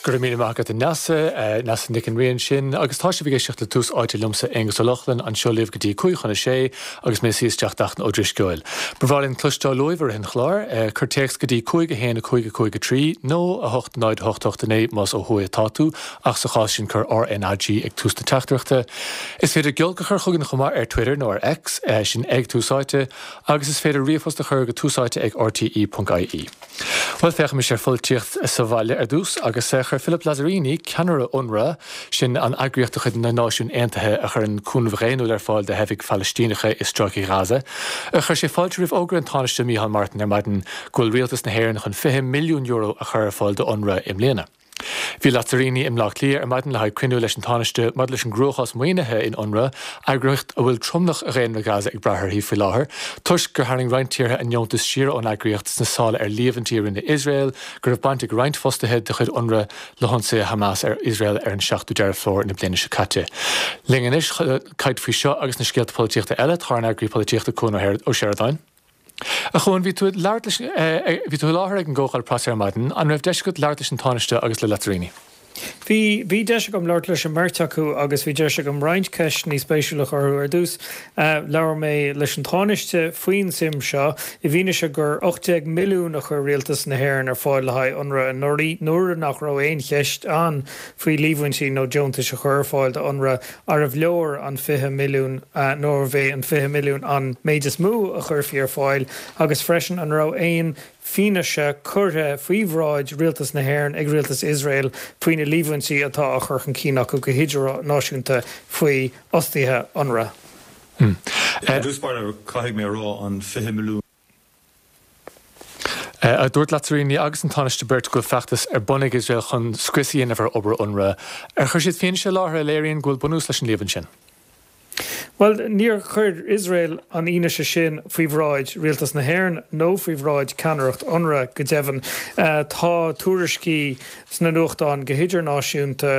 Go raibh míle maith agat a Neasa, Neasa Nic an Rí ansin, agus tá sibh ag éisteacht le Tús Áite liomsa, Aonghus Ó Lochlainn, anseo libh go dtí 5:55 agus mé ag suí isteach d'Fhachtna Ó Drisceoil. Ba bhreá linn cloisteáil uaibh i rith an chláir. Cuir téacs go dtí 5 1 5 5 3 nó 8 0 8 8 9 más ó thuaidh atá tú, ach sa chás sin cuir RNAG ag tús na teachtaireachta. Is féidir giolc a chur chugainn chomh maith ar Twitter nó ar X, sin ag Tús Áite, agus is féidir ríomhphost a chur go túsáite ag rte.ie. Bhuel, féachaimis ar pholaitíocht sa bhaile ar dtús, agus chuir Philippe Lazzarini, ceannaire UNRWA, sin an eagraíocht de chuid na Náisiún Aontaithe a chuireann cúnamh dhaonnúil ar fáil do theifigh Phalaistíneacha i Stráice Ghaza, chuir sé fáilte roimh fhógra an Tánaiste Micheál Martin ar maidin go bhfuil rialtas na hÉireann chun €20 milliún a chur ar fáil do UNRWA i mbliana. Bhí Lazzarini i mBleá Cliath ar maidin le haghaidh cruinniú leis an Tánaiste maidir leis an gcruachás maoinithe in UNRWA, eagraíocht a bhfuil tromlach dhaonra Ghaza ag brath uirthi faoi láthair, toisc gur tharraing roinnt tíortha a ndeontais siar ón eagraíocht sna sála ar líomhaintí a rinne Iosrael go raibh baint ag roinnt fostaithe de chuid UNRWA le hionsaithe Hamas ar Iosrael ar an 7ú Deireadh Fómhair na bliana seo caite. Linn anois chun caint faoi seo agus na scéalta polaitíochta eile, tá ár n-eagraí polaitíochta Cuan Ó Seireadáin. A Chuain, bhí tú ag labhairt leis, bhí tú i láthair ag an gcomhdháil preasa ar maidin, an raibh deis agat labhairt leis an Tánaiste agus le Lazzarini? Bhí, bhí deis agam labhairt leis an mbeirt acu agus bhí deis agam roinnt ceisteanna spéisiúla a chur orthu. Ar dtús, labhair mé leis an Tánaiste faoin tsuim seo, i bhfianaise gur 18 milliún a chuir Rialtas na hÉireann ar fáil le haghaidh UNRWA anuraidh, nuair nach raibh aon cheist ann faoi líomhaintí nó deontais a chur ar fáil do UNRWA. Arbh leor an 20 milliún nó arbh é an 20 milliún an méid is mó a chuirfí ar fáil agus freisin an raibh aon fianaise curtha faoi bhráid Rialtas na hÉireann ag Rialtas Iosrael faoi na líomhaintí atá á chur chun cinn acu go hidirnáisiúnta faoi fhostaithe UNRWA. I dtús báire, caithfidh mé a rá, an 20 milliún. Dúirt Lazzarini agus an Tánaiste beirt go bhfuil feachtas ar bun ag Iosrael chun scrios a dhéanamh ar obair UNRWA. Ar chuir siad fianaise i láthair a léiríonn go bhfuil bunús leis an líomhain sin? Bhuel, níor chuir Iosrael an fhianaise sin faoi bhráid Rialtas na hÉireann nó faoi bhráid ceannaireacht UNRWA, go deimhin. Tá tuairiscí sna nuachtáin go hidirnáisiúnta,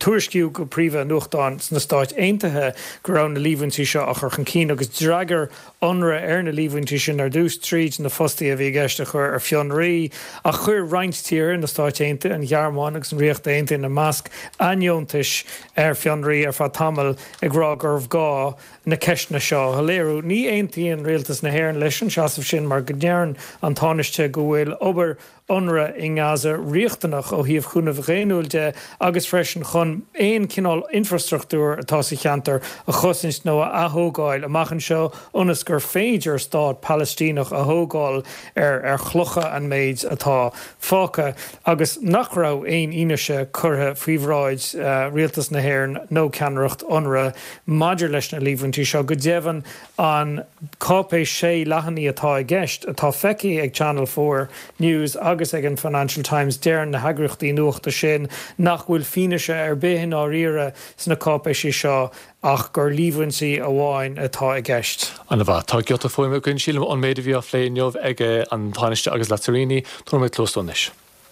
tuairiscíodh go príomha i nuachtáin sna Stáit Aontaithe go raibh na líomhaintí seo á chur chun cinn agus d'fhreagair UNRWA ar na líomhaintí sin ar dtús tríd na fostaithe a bhí i gceist a chur ar fionraí, ach chuir roinnt tíortha, na Stáit Aontaithe, an Ghearmáin agus an Ríocht Aontaithe ina measc, a ndeontais ar fionraí ar feadh tamaill ag rá gurbh ghá na ceisteanna seo a shoiléiriú. Ní aontaíonn Rialtas na hÉireann leis an seasamh sin mar go ndeireann an Tánaiste go bhfuil obair UNRWA i nGaza riachtanach ó thaobh chúnamh dhaonnúil de agus freisin chun aon chineál infreastruchtúir atá sa cheantar a chosaint nó a athógáil amach anseo ionas gur féidir stát Palaistíneach a thógáil ar ar chlocha an méid atá fágtha agus nach raibh aon fhianaise curtha faoi bhráid Rialtas na hÉireann nó ceannaireacht UNRWA maidir leis na líomhaintí seo. Go deimhin, An cáipéis sé leathanaigh atá i gceist, atá feicthe ag Channel 4 News agus ag an Financial Times, deireann na heagraíochtaí nuachta sin nach bhfuil fianaise ar bith i ndáiríre sna cáipéisí seo ach gur líomhaintí amháin atá i gceist. An-mhaith. Tá giota fuaime againn, sílim, ón méid a bhí á phlé inniu ag an Tánaiste agus Lazzarini. Tabharfaidh muid cluas dó anois.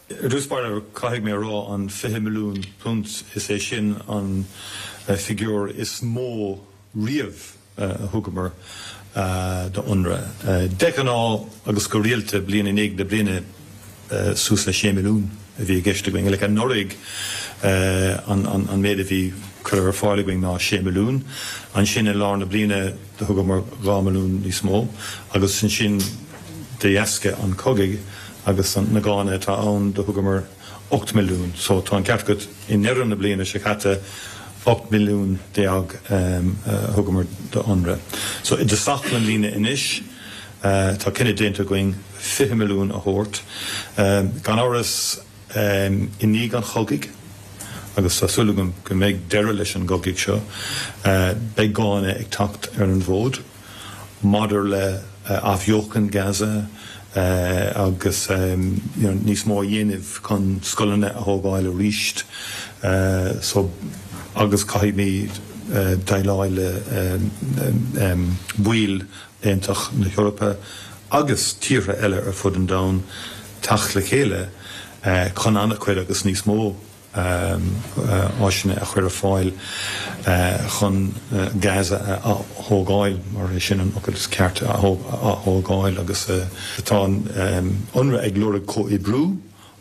Ar dtús báire, caithfidh mé a rá, an £20 milliún, is é sin an figiúr is mó riamh a thugamar do UNRWA. De ghnáth agus go rialta, bliain i ndiaidh na bliana, suas le 6 milliún a bhí i gceist againn. Like anuraidh, an méid a bhí curtha ar fáil againn ná 6 milliún. Ansin i lár na bliana do thugamar 2 milliún níos mó agus ansin de dheasca an chogaidh agus na gánna atá ann do thugamar 8 milliún. So tá an ceart agat, i ndeireadh na bliana seo caite 18 milliún a thugamar do UNRWA. So i dtosach na bliana anois tá cinneadh déanta againn 20 milliún a thabhairt. Gan amhras i ndiaidh an chogaidh, agus tá súil agam go mbeidh deireadh leis an gcogadh seo, beidh gánna ag teacht ar an bhfód. maidir le athbheochan Gaza agus níos mó a dhéanamh chun scoileanna a thógáil arís so agus caithfimid déileáil le baill Aontas na hEorpa agus tíortha eile ar fud an domhain teacht le chéile chun an-chuid agus níos mó áiseanna a chur ar fáil chun Gaza a ath-thógáil, mar é sin an fhocal is ceart, a ath-thógáil agus tá an UNRWA ag lorg comhoibriú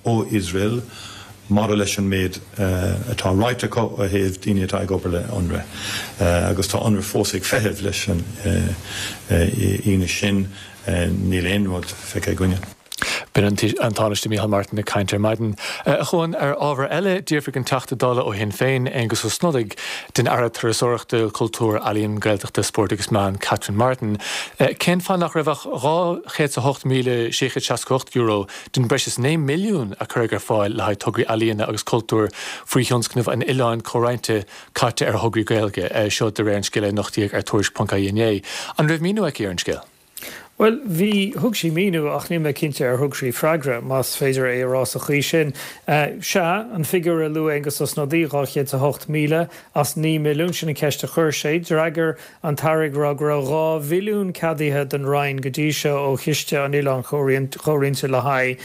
ó Iosrael. Maidir leis an méid atá ráite acu ó thaobh daoine atá ag obair le Unrwa, agus tá Unrwa fós ag feitheamh leis an fhianaise sin, níl aon rud feicthe againne. B'in an Tánaiste Micheál Martin ag caint ar maidin. A Chuain, ar ábhar eile, d'fhiafraigh an Teachta Dála ó Shinn Féin, Aengus Ó Snodaigh, den Aire Turasóireachta, Cultúir, Ealaíon, Gaeltachta, Spóirt agus Meán, Catherine Martin, cén fáth nach raibh ach €208,668 den breis is 9 milliún a cuireadh ar fáil le haghaidh tograí ealaíona agus cultúir faoi thionscnamh an Oileáin Chomhroinnte caite ar thograí Gaeilge, seo de réir an scéil a nochtaíodh ar Tuairisc.ie inné. An raibh míniú aici ar an scéal? Bhuel, bhí, thug sí míniú ach níl mé cinnte ar thug sí freagra, más féidir é a rá sa chaoi sin. Sea, an figiúr a luaigh Aengus Ó Snodaigh, 208,000 as 9 milliún, sin an cheist a chuir sé. D'fhreagair an tAire ag rá go raibh 2 mhilliún ceadaithe don Roinn go dtí seo ó Chiste an Oileáin Chomhroinnte le haghaidh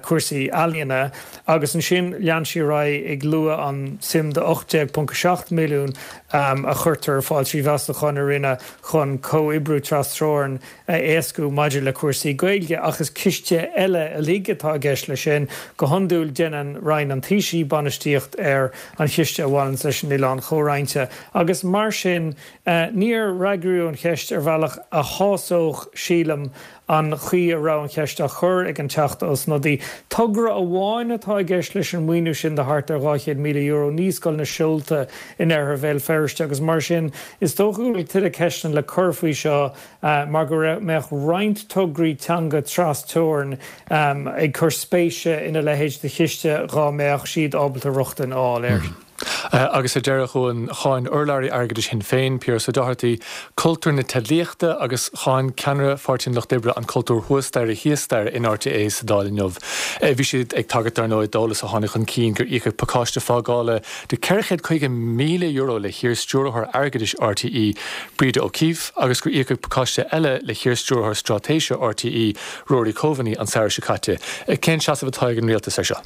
cúrsaí ealaíona agus ansin lean sí ar aghaidh ag lua an suim de 18.7 milliún a chuirtear ar fáil trí mheastacháin a rinneadh chun comhoibriú trasteorann a éascú maidir le cúrsaí Gaeilge, ach is ciste eile uilig atá i gceist leis sin. Go hiondúil déanann Roinn an Taoisigh bainistíocht ar an chiste a bhaineanns leis an Oileán Chomhroinnte agus mar sin níor fhreagraíodh an cheist ar bhealach a shásódh, sílim, an chaoi a raibh an cheist á chur ag an Teachta Ó Snodaigh. Togra amháin atá i gceist leis an maoiniú sin de thart ar €200,000, Naíscoil na Seolta in oirthear Bhéal Feirste agus mar sin is dócha go bhfuil tuilleadh ceisteanna le cur faoi seo mar go mbeadh roinnt tograí teanga tras-teorann ag cur spéise ina leithéid de chiste dhá mbeadh siad ábalta rochtain a fháil air. Agus ar deireadh, a Chuain, cháin urlabhraí airgeadais Shinn Féin, Piaras Ó Dochartaigh, cultúr na teidlíochta agus cháin ceannaire Pháirtí an Lucht Oibre an cultúr thuas staighre thíos staighre in RTÉ sa Dáil inniu. Bhí siad ag tagairt, dar ndóigh, d'eolas a tháinig chun cinn gur íocadh pacáiste fágála de €450,000 le hiar-stiúrthóir airgeadais RTÉ, Breda O'Keeffe, agus gur íocadh pacáiste eile le hiar-stiúrthóir straitéise RTÉ, Rory Coveney, an samhradh seo caite. Cén seasamh atá ag an rialtas air seo?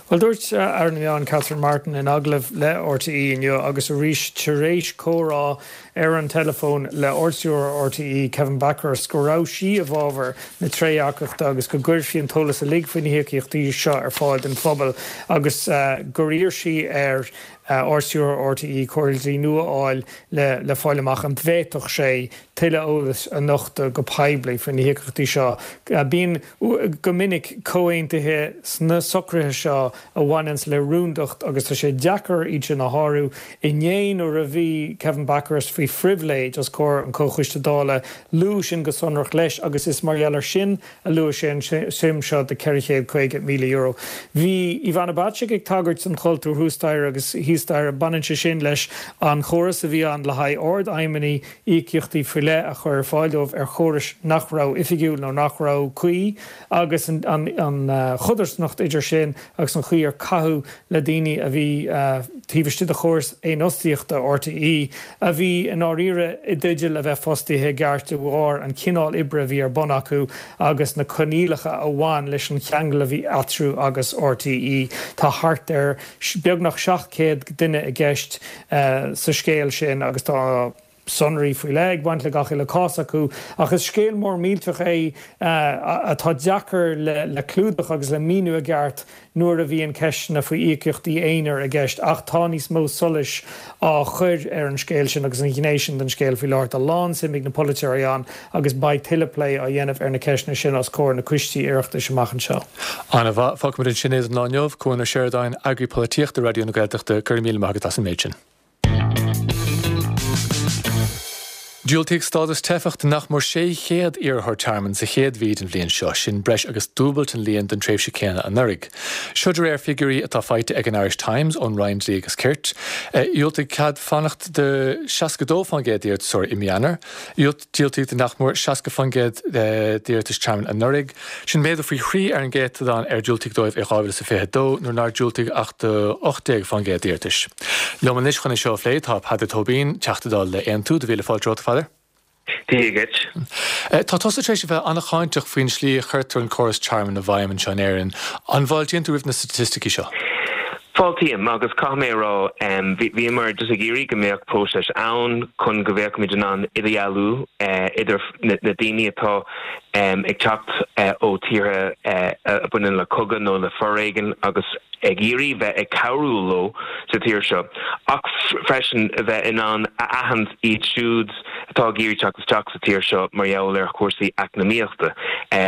Bhuel, dúirt Aire na Meán Catherine Martin in agallamh le RTÉ inniu agus arís tar éis comhrá ar an teileafón le Ardstiúrthóir RTÉ Kevin Bakhurst go raibh sí i bhfabhar na trédhearcachta agus go gcuirfí an t-eolas uilig faoi na híocaíochtaí seo ar fáil don phobal agus gur iarr sí ar Ardstiúrthóir RTÉ comhairle dlí nua a fháil le fáil amach an bhféadfadh sé tuilleadh eolais a nochtadh go poiblí faoi na híocaíochtaí seo. Bíonn, go minic, comhaontuithe sna socruithe seo a bhaineanns le rúndacht agus tá sé deacair iad sin a shárú. Inné nuair a bhí Kevin Bakhurst faoi phribhléid os comhair an Chomhchoiste Dála, luadh sin go sonrach leis agus is mar gheall air sin a luaigh sé an suim seo de €450,000. Bhí Ivana Bacik ag tagairt don chultúr thuas staighre agus thíos staighre. Baineann sé sin leis an chóras a bhí ann le haghaidh ardfheidhmeannaigh íocaíochtaí faoi leith a chur ar fáil dóibh ar chórais nach raibh oifigiúil nó nach raibh cuí agus an chodarsnacht idir sin agus an chaoi ar caitheadh le daoine a bhí taobh istigh de chóras fhéinfhostaíochta RTÉ, a bhí i ndáiríre i dteideal a bheith fostaithe i gceart de bharr an chineál oibre a bhí ar bun acu agus na coinníollacha a bhain leis an cheangal a bhí eatarthu agus RTÉ. Tá thart ar beagnach 700 duine i gceist sa scéal sin agus tá sonraí faoi leith ag baint le gach uile cás acu. Ach is scéal mór millteach é atá deacair le clúdach agus le míniú i gceart nuair a bhíonn ceisteanna faoi íocaíochtaí aonair i gceist ach tá níos mó solais á chur ar an scéal sin agus an ghné sin den scéal faoi láthair. Tá lán-suim ag na polaiteoirí ann agus beidh tuilleadh plé á dhéanamh ar na ceisteanna sin os comhair na coistí Oireachtais amach anseo. Ana-mhaith. Fágfaimid ansin é don lá inniu. Cuan Ó Seireadáin, Eagraí Polaitíochta Raidió na Gaeltachta, go raibh míle maith agat as an méid sin. Diúltaíodh stádas teifeach do nach mór 600 iarrthóir tearmainn sa chéad mhí den bhliain seo, sin breis agus dúbailt an líon don tréimhse céanna anuraidh. Seo de réir figiúirí atá faighte ag an Irish Times ón Roinn Dlí agus Cirt. Dhiúltaíodh cead fanacht do 62% d'iarratasóirí i mí Eanáir. Diúltaíodh do nach mór 60% d'iarratais tearmainn anuraidh. Sin méadú faoi thrí ar an gcéatadán ar diúltaíodh dóibh i 2022, nuair nár diúltaíodh ach do 18% d'iarratais. Liom anois chun é seo a phlé tá Peadar Tóibín, Teachta Dála le Aontú. Do mhíle fáilte romhat, a Pheadair. Dia dhuit. Tá tusa tar éis a bheith an-cháinteach faoin slí a chuirtear an córas tearmainn i bhfeidhm anseo in Éirinn. An bhfáiltíonn tú roimh na staitisticí seo? Fáiltím, agus caithfidh mé a rá, bhíomar just ag iarraidh go mbeadh próiseas ann chun go bhféadfaimid in ann idirdhealú idir na daoine atá ag teacht ó tíortha a bhaineann le cogadh nó le foréigean agus ag iarraidh bheith ag cabhrú leo sa tír seo ach freisin a bheith in ann a aithint iad siúd atá ag iarraidh teacht isteach sa tír seo mar gheall ar chúrsaí eacnamaíochta.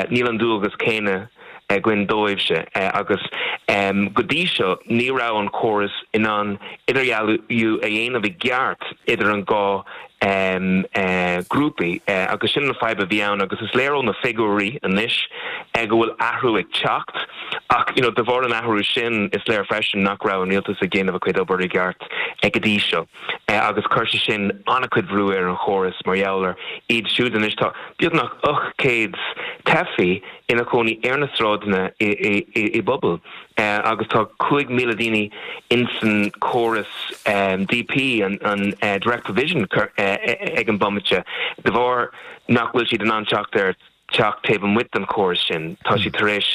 Níl an dualgas céanna againn dóibhse agus go dtí seo ní raibh an córas in ann idirdhealú a dhéanamh i gceart idir an dhá grúpaí agus sin an fadhb a bhí ann agus is léir ó na figiúirí anois go bhfuil athrú ag teacht ach you know de bharr an athrú sin is léir freisin nach raibh an rialtas ag déanamh a chuid obair i gceart go dtí seo agus chuir sé sin an-chuid bhrú ar an chóras mar gheall ar iad siúd anois tá beagnach 800 teifí ina chónaí ar na sráideanna i bpubaill agus tá 5,000 daoine insan córas DP, an Direct Provision, ag an bomaite de bharr nach bhfuil siad in ann teacht ar teach taobh amuigh den chóras sin. Tá siad tar éis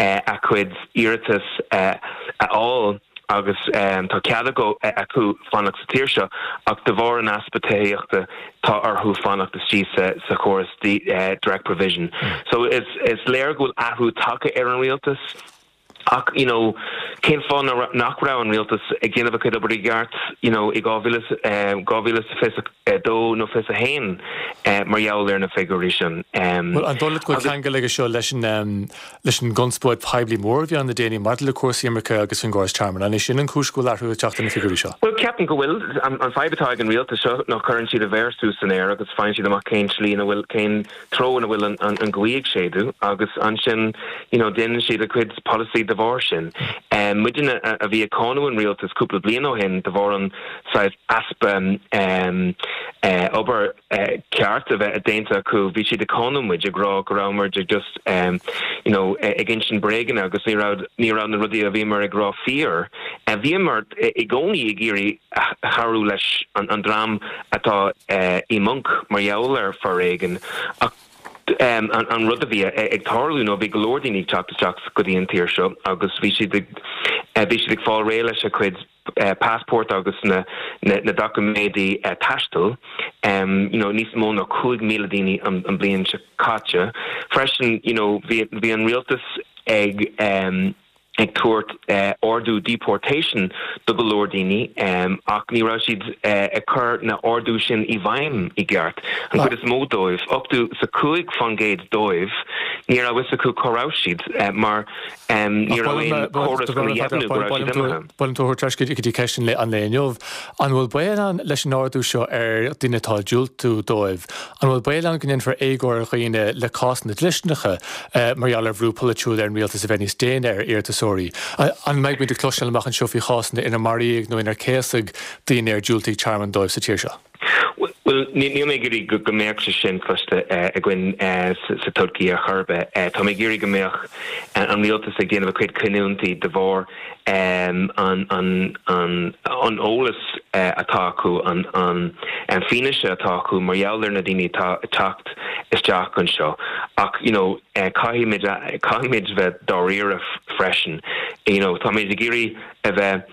a gcuid iarratas a fháil. agus tá cead acu fanacht sa tír seo ach de bharr an easpa tithíochta tá orthu fanacht istigh sa chóras direct provision. So is léir go bhfuil athrú tagtha ar an rialtas ach you know cén fáth nach raibh an rialtas ag déanamh a chuid obair i gceart you know i 2022 nó 21 mar gheall ar na figiúirí sin. Bhuel an dóigh leat go bhfuil ceangal aige seo leis an leis an gconspóid poiblí mór a bhí ann le déanaí maidir le cúrsaí imirce agus faoin gcóras tearmainn. An é sin an chúis go bhfuil athrú ag teacht ar na figiúirí seo? Bhuel, ceapaim go bhfuil. An fadhb atá ag an rialtas seo ná cuireann siad a mhéar suas san aer agus faigheann siad amach cén tslí ina bhfuil, cén treo ina bhfuil an ghaoth ag séideadh agus ansin you know déanann siad a gcuid polasaí de bharr sin. Muidne a bhí ag cáineadh an rialtas cúpla bliain ó shin de bharr an saghas easpa obair, ceart a bheith déanta acu. Bhí siad ag cáineadh muid, ag rá go raibh muid ag just you know ag insint bréaganna agus ní raibh ní raibh na rudaí a bhíomar ag rá fíor. Bhíomar i gcónaí ag iarraidh chabhrú leis an dream atá i mponc mar gheall ar foréigean ach an rud a bhí ag tarlú nó bhí go leor daoine ag teacht isteach go dtí an tír seo agus bhí siad ag bhí siad ag fáil réidh leis a cuid passport agus na na doiciméidí taistil, you know níos mó ná 5,000 daoine an bliain seo caite. Freisin, you know, bhí bhí an rialtas ag ag tabhairt ordú deportation do go leor daoine ach ní raibh siad ag cur na ordú sin i bhfeidhm i gceart. An chuid is mó dóibh, 85% dóibh, ní raibh fhios acu cá raibh siad mar Ní raibh aon chóras chun a dheimhniú go raibh siad imithe. Ba mhaith liom tú a thabhairt ar ais go dtí ceist an lae inniu. An bhfuil baol ann leis an ardú seo ar dhaoine atá ag diúltú dóibh, an bhfuil baol ann go ndéanfar éagóir ar dhaoine le cásanna dlisteanacha mar gheall ar bhrú polaitiúil ar an rialtas a bheith níos déine ar iarratasóirí? An mbeidh muid ag cloisteáil amach anseo faoi chásanna inar maraíodh nó inar céasadh daoine ar diúltaíodh tearmann dóibh sa tír seo? Bhuel, níl mé ag iarraidh go mbeadh sé sin cloiste againn sa todhchaí ar chor ar bith. Tá mé ag iarraidh go mbeadh an rialtas ag déanamh a cuid cinniúintí de bharr an eolas atá acu, an fianaise atá acu mar gheall ar na daoine atá ag teacht isteach anseo. Ach, you know, caithfimid, caithfimid bheith dáiríre freisin. You know, táimid ag iarraidh a bheith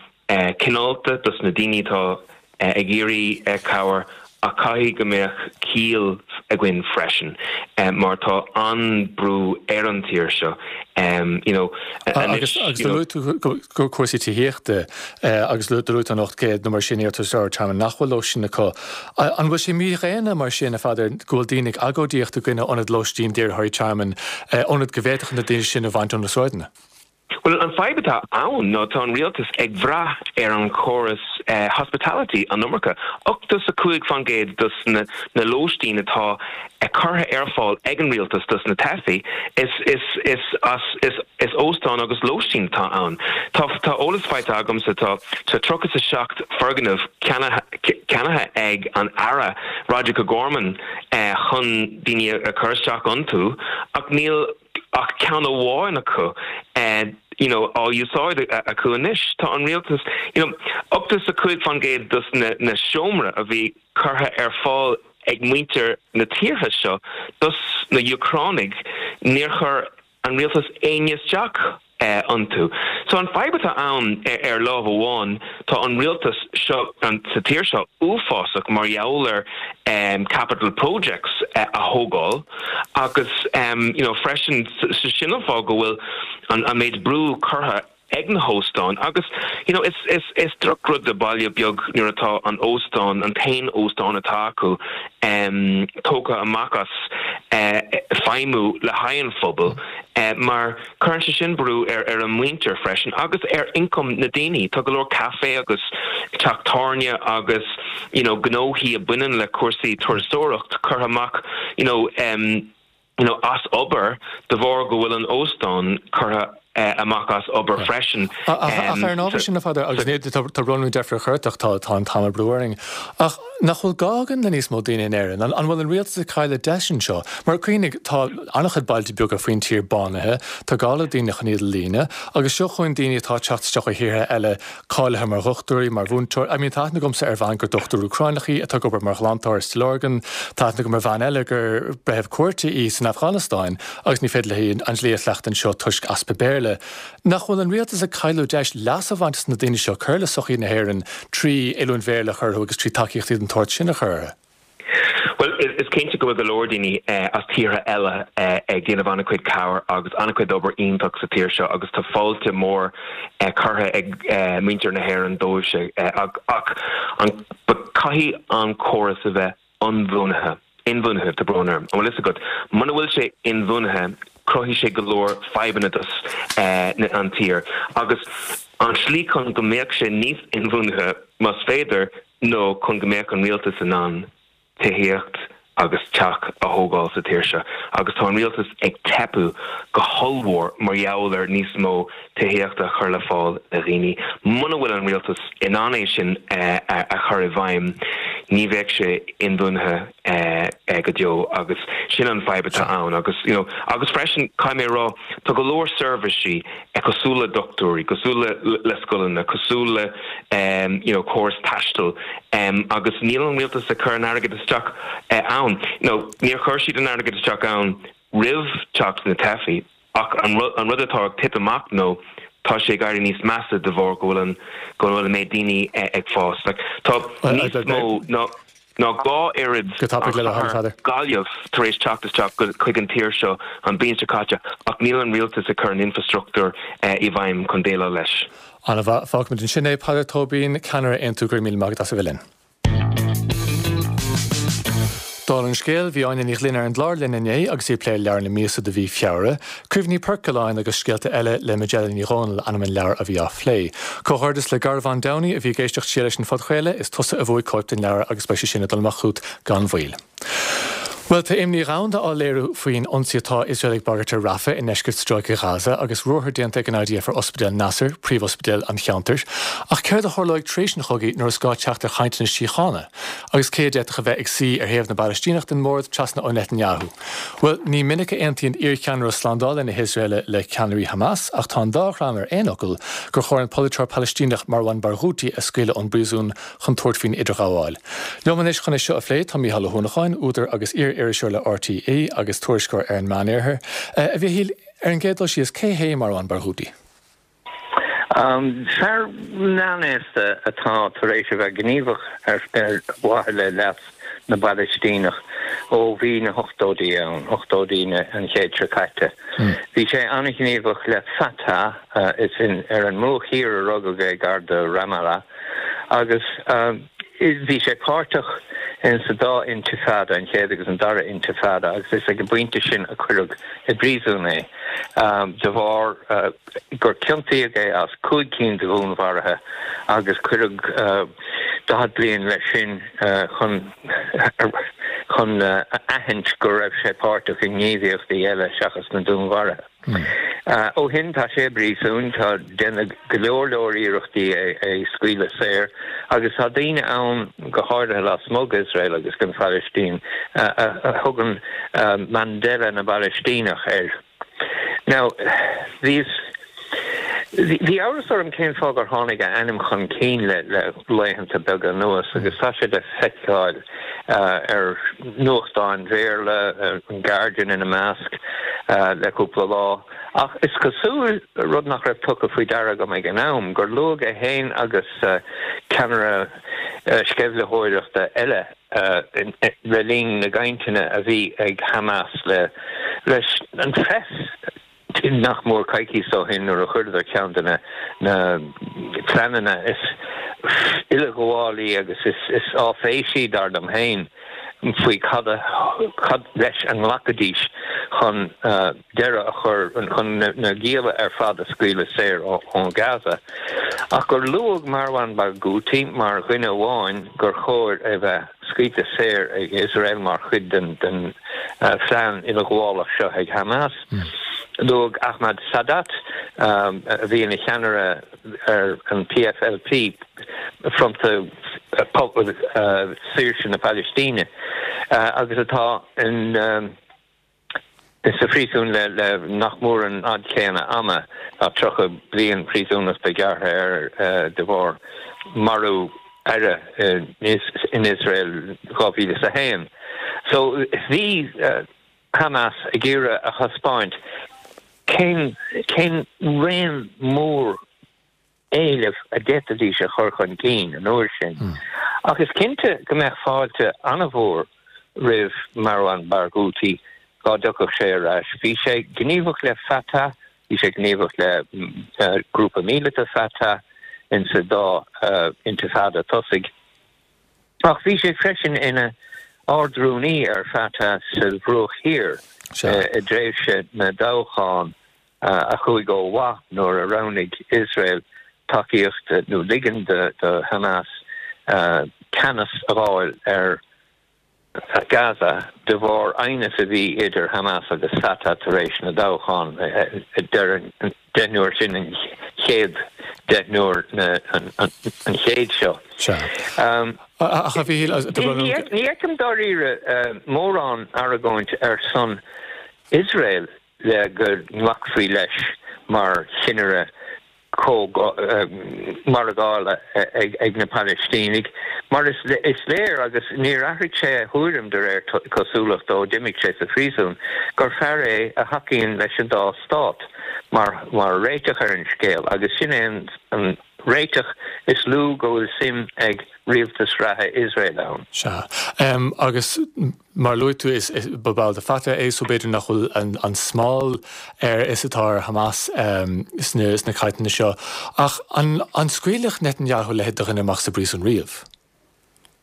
cineálta dos na daoine atá ag iarraidh cabhair ach caithfidh go mbeadh ciall againn freisin mar tá an-brú ar an tír seo you know anois. Agus do luaigh tú cúrsaí tithíochta agus do luaigh tú an 800 nó mar sin iarratasóir tearmainn nach bhfuil lóistín acu. An bhfuil sé mídhaonna mar sin, a Pheadair, go bhfuil daoine ag agóidíocht i gcoinne ionad lóistín d'iarrthóirí tearmainn, ionad go bhféadfadh na daoine sin a bhaint ó na sráideanna? Bhuel, an fadhb atá ann ná tá an rialtas ag bhrath ar an chóras hospitality an iomarca. 85% dos na lóistín atá curtha ar fáil ag an rialtas dos na teifigh, is is is as is is óstán agus lóistín atá ann. Tá tá eolas faighte agamsa tá tá 37 foirgneamh ceannaithe ag an Aire Roderic O'Gorman chun daoine a chur isteach iontu ach níl ach ceann amháin acu you know á úsáid acu anois. Tá an rialtas, you know, 85% dos na na seomra a bhí curtha ar fáil ag muintir na tíortha seo dos na Úcránaigh, níor chuir an rialtas éinne isteach. iontu. So an fadhb atá ann ar lámh amháin tá an rialtas seo sa tír seo uafásach mar gheall ar capital projects a thógáil agus you know freisin sin an fáth go bhfuil an méid brú curtha ag na hóstáin agus you know is is is drochrud do baile beag nuair atá an óstán, an t-aon óstán atá acu tógtha amach as feidhmiú le haghaidh an phobail mar cuireann sé sin brú ar ar an muintir freisin agus ar ioncam na daoine. Tá go leor caife agus teach tábhairne agus you know gnóthaí a baineann le cúrsaí turasóireacht curtha amach you know you know, as obair de bharr go bhfuil an óstán curtha amach as obair freisin. Ach ar an ábhar sin, a Pheadair, agus ní, tá brón orm deifir a chur ort ach tá tá an t-am ag brú orainn, ach nach bhfuil gá againn le níos mó daoine in Éirinn? An bhfuil an rialtas ag cailleadh deis anseo? Mar cuimhnigh, tá an-chuid bailte beaga faoin tír bánaithe, tá gá le daoine chun iad a líonadh, agus seo chugainn daoine atá ag teacht isteach ó thíortha eile cáilithe mar dhochtúirí, mar mhúinteoirí. I mean, tá aithne agamsa ar bhean gur dochtúir Úcráineach í atá ag obair mar ghlantóir i Stillorgan. Tá aithne agam ar bhean eile gur breitheamh cúirte í san Afganastáin agus ní féidir léi an dlí a chleachtadh anseo toisc easpa Béarla. Nach bhfuil an rialtas ag cailleadh deis leas a bhaint as na daoine seo, cur le sochaí na hÉireann trí oiliúint Bhéarla a chur orthu agus trí tacaíochtaí den tsórt sin a chur orthu? Bhuel, is cinnte go bhfuil go leor daoine as tíortha eile ag déanamh an-chuid cabhair agus an-chuid obair iontach sa tír seo agus tá fáilte mór curtha ag muintir na hÉireann dóibhse ach caithfidh an córas a bheith ionbhuanaithe, inbhuanaithe, tá brón orm, an bhfuil fhios agat? Muna bhfuil sé inbhuanaithe, cruthaíonn sé go leor fadhbanna dos an tír agus an tslí chun go mbeadh sé níos inbhuanaithe, más féidir, nó chun go mbeadh an rialtas in ann tithíocht agus teach a thógáil sa tír seo agus tá an rialtas ag teipeadh go hollmhór mar gheall ar níos mó tithíochta a chur le fáil do dhaoine. Muna bhfuil an rialtas in ann é sin a chur i bhfeidhm ní bheadh sé inbhuanaithe go deo agus sin an fadhb atá ann agus you know agus freisin caithfidh mé a rá tá go leor seirbhísí cosúil le dochtúirí, cosúil le scoileanna, cosúil le you know córas taistil agus níl an rialtas ag cur an airgead isteach ann. You know níor chuir siad an airgead isteach ann roimh teacht na teifigh ach an an rud atá ag titim amach nó tá sé ag éirí níos measa de bharr go bhfuil an go bhfuil an méid daoine ag fás. Like tá níos mó ná ná 2 oiread Go tapaidh le do thoil, Peadar. Gaillimh tar éis teacht isteach chuig an tír seo an bhliain seo caite ach níl an rialtas ag cur an infreastruchtúr i bhfeidhm chun déileáil leis. An-mhaith. Fágfaimid ansin é. Peadar Tóibín, Ceannaire Aontú, go raibh míle maith agat as a bheith linn. Dála an scéil, bhí Áine Ní Ghlinn ar an gclár linn inné agus í ag plé leabhar na míosa do mhí Feabhra, Cuimhní Poircealláin agus Scéalta Eile le Majella Ní Dhomhnaill ainm an leabhair a bhí á phlé. Comhghairdeas le Garbhán Downey a bhí ag éisteacht siar leis an phodchraoladh, is tusa a bhuaigh cóip den leabhar agus beidh sé sin ag dul amach chugat gan mhoill. Bhuel, tá imní dhomhanda á léiriú faoin ionsaí atá Iosrael ag bagairt ar Rafah i ndeisceart Stráice Ghaza agus ruathar déanta ag an IDF ar Ospidéal Nasser, príomhospidéal an cheantair. Ach céard a tharlóidh tar éis an chogaidh nuair is gá teacht ar chainteanna síochána? Agus cé a d'fhéadfadh a bheith ag suí ar thaobh na bPalaistíneach den mbord trasna ó Netanyahu? Bhuel, ní minic a aontaíonn iarcheannaire slándála na hIosraeile le ceannairí Hamas ach tá an dá dhream ar aon fhocal gur chóir an polaiteoir Palaistíneach Marwan Barghouti a scaoileadh ón bpríosún chun tabhairt faoin idirghabháil. Liom anois chun é seo a phlé tá Mícheál Ó hUanacháin, údar agus iar-iriseoir le RTÉ agus tuairisceoir ar an Meánoirthear. A Mhichíl, ar an gcéad dul síos, cé hé Marwan Barghouti? Fear meánaosta atá tar éis a bheith gníomhach ar mhaithe le leas na bPalaistíneach ó bhí na hochtóidí ann, ochtóidí an chéid seo caite. Bhí sé an-ghníomhach le Fatah, is ar an mBruach Thiar a rugadh é, gar do Ramallah, agus bhí sé páirteach in sa dá intifada, an chéad agus an dara intifada, agus is ag an bpointe sin a cuireadh i bpríosún é de bharr gur ciontaíodh é as 5 cinn de dhúnmharuithe agus cuireadh 40 bliain leis sin chun chun a aithint go raibh sé páirteach i ngníomhaíochtaí eile seachas na dúnmharuithe. Ó shin tá sé i bpríosún, tá déanadh go leor leor iarrachtaí é a scaoileadh saor agus tá daoine ann, go háirithe lasmuigh d'Iosrael agus den Phalaistín, a thugann Mandela na bPalaistíneach air. Now, bhíos, bhí amhras orm cén fáth gur tháinig a ainm chun cinn le le laethanta beaga anuas agus tá sé le feiceáil ar nuachtáin Bhéarla, an Guardian ina measc, le cúpla lá. Ach is cosúil, rud nach raibh tugtha faoi deara agam ag an am, gur luadh é féin agus ceannaire sceimhlitheoireachta eile le linn na gcainteanna a bhí ag Hamas leis an phress nach mór coicíos ó shin nuair a chuireadar ceann de na pleananna is uileghabhálaí agus is áiféisí, dar liom féin, faoi cad cad leis a nglacfaidís chun deireadh a chur, chun na gialla ar fad a scaoileadh saor ó Gaza. Ach gur luadh Marwan Barghouti mar dhuine amháin gur chóir a bheith scaoilte saor ag Iosrael mar chuid den phlean uileghabhálach seo ag Hamas. Luadh Ahmad Sadat, a bhí ina cheannaire ar an PFLP, Fronta Saoirse na Palaistíne, agus atá in sa phríosún le nach mór an fhad céanna ama, tá 30 bliain príosúnachta gearrtha air de bharr marú aire in Iosrael 2001. So bhí Hamas ag iarraidh a thaispeáint cén cén raon mór éileamh a d'fhéadfaidís a chur chun cinn an uair sin. Ach is cinnte go mbeadh fáilte an-mhór roimh Marwan Barghouti dá dtiocfadh sé ar ais. Bhí sé gníomhach le Fatah, bhí sé gníomhach le grúpa míleata Fatah insa dá intifada tosaigh. Ach bhí sé freisin ina Ard-Rúnaí ar Fatah sa Bhruach Thiar i dtréimhse na dtoghchán a chuaigh ó mhaith nuair a roghnaigh Iosrael tacaíocht nó ligean do Hamas ceannas a fháil ar Gaza de bharr aighneas a bhí idir Hamas agus Fatah tar éis na dtoghchán deireadh an deichniúr sin, an chéad deichniúr an chéid seo. Ach a Mhíchíl, Ní fheicim dáiríre mórán argóint ar son Iosrael le go nglacfaí leis mar chinnire margála ag na Palaistínigh, mar is léir, agus níor athraigh sé a thuairim de réir cosúlachta ó d'imigh sé sa phríosún, gur fear é a thacaíonn leis an dá stát mar réiteach ar an scéal, agus sin é an réiteach is lú go bhfuil suim ag rialtas reatha Iosrael ann. Sea. Agus mar a luaigh tú, is ba ball de Fatah é so b'fhéidir nach bhfuil an smál air is atá ar Hamas sna cainteanna seo. Ach an scaoilfeadh Netanyahu a leithéid de dhuine amach as an bpríosún riamh?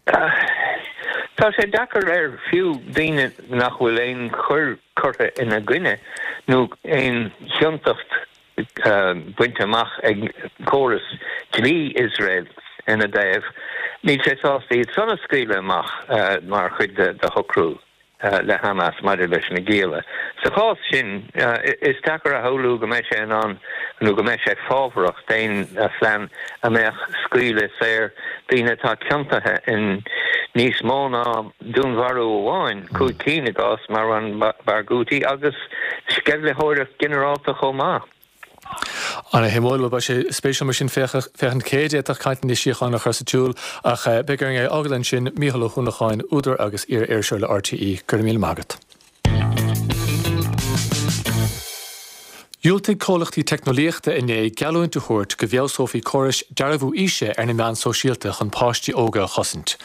Tá sé deacair air fiú daoine nach bhfuil aon choir curtha ina gcoinne nó aon chiontacht bainte amach ag córas dlí Iosrael ina dtaobh, níl sé sásta iad san a scaoileadh amach mar chuid de shocrú le Hamas maidir leis na gialla. Sa chás sin, is deacair a shamhlú go mbeidh sé in ann nó go mbeidh sé fábharach d'aon phlean a mbeadh scaoileadh saor daoine atá ciontaithe in níos mó ná dúnmharú amháin, 5 cinn i gcás Marwan Barghouti, agus sceimhlitheoireacht ghinearálta chomh maith. Ana-shuimiúil. Bhuel, beidh sé spéisiúil mar sin féachaint cé a d'fhéadfadh cainteanna síochána a chur sa tsiúl, ach beidh orainn é a fhágáil ansin. Mícheál Ó hUanacháin, údar agus iar-iriseoir le RTÉ, go raibh míle maith agat. Dhiúltaigh comhlachtaí teicneolaíochta inné geallúint a thabhairt go bhfeabhsófaí córais dearbhú aoise ar na meáin sóisialta chun páistí óga a chosaint.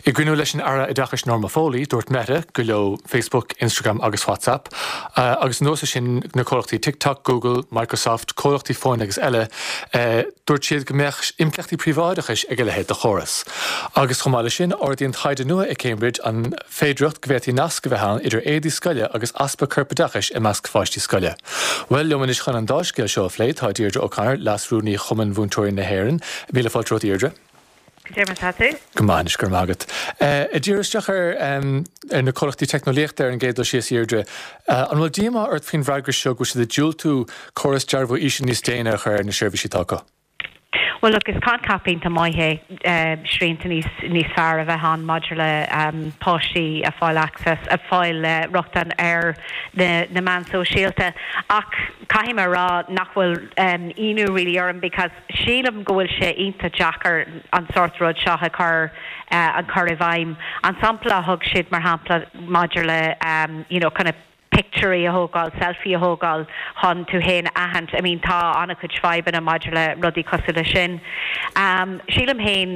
I gcruinniú leis an Aire Oideachais Norma Foley, dúirt Meta gur leo Facebook, Instagram agus WhatsApp, agus anuas air sin na comhlachtaí TikTok, Google, Microsoft, comhlachtaí fóin agus eile, dúirt siad go mbeadh impleachtaí príobháideachais ag a leithéid de chóras. Agus chomh maith leis sin, ardaíonn taighde nua i Cambridge an. féidearthacht go bhféadfaí nasc a bheith ann idir éadaí scoile agus easpa corpoideachais i measc pháistí scoile. Bhuel, liom anois chun an dá scéal seo a phlé tá Deirdre O'Connor, Leas-Rúnaí Chumann Mhúinteoirí na hÉireann. Míle fáilte romhat, a Dheirdre. Cad é mar atá tú? Go maith anois, go raibh maith agat. Ag díriú isteach ar na comhlachtaí teicneolaíochta ar an gcéad dul síos, a Dheirdre, an bhfuil díomá ort faoin bhfreagra seo go bhfuil siad ag diúltú córas dearbhú aoise níos déine a chur ar na seirbhísí atá acu? Bhuel look, is coincheap iontach maith é srianta níos níos fearr a bheith ann maidir le páistí a fáil access, a fáil rochtain ar na na meáin sóisialta ach caithfidh mé a rá nach bhfuil ionadh really orm because sílim go bhfuil sé iontach deacair an sórt rud seo a chur a chur i bhfeidhm. An sampla a thug siad mar shampla maidir le you know kind of. pictiúirí a thógáil, selfie a thógáil chun tú féin a aithint. I mean tá an-chuid fadhbanna maidir le rudaí cosúil leis sin. Sílim féin,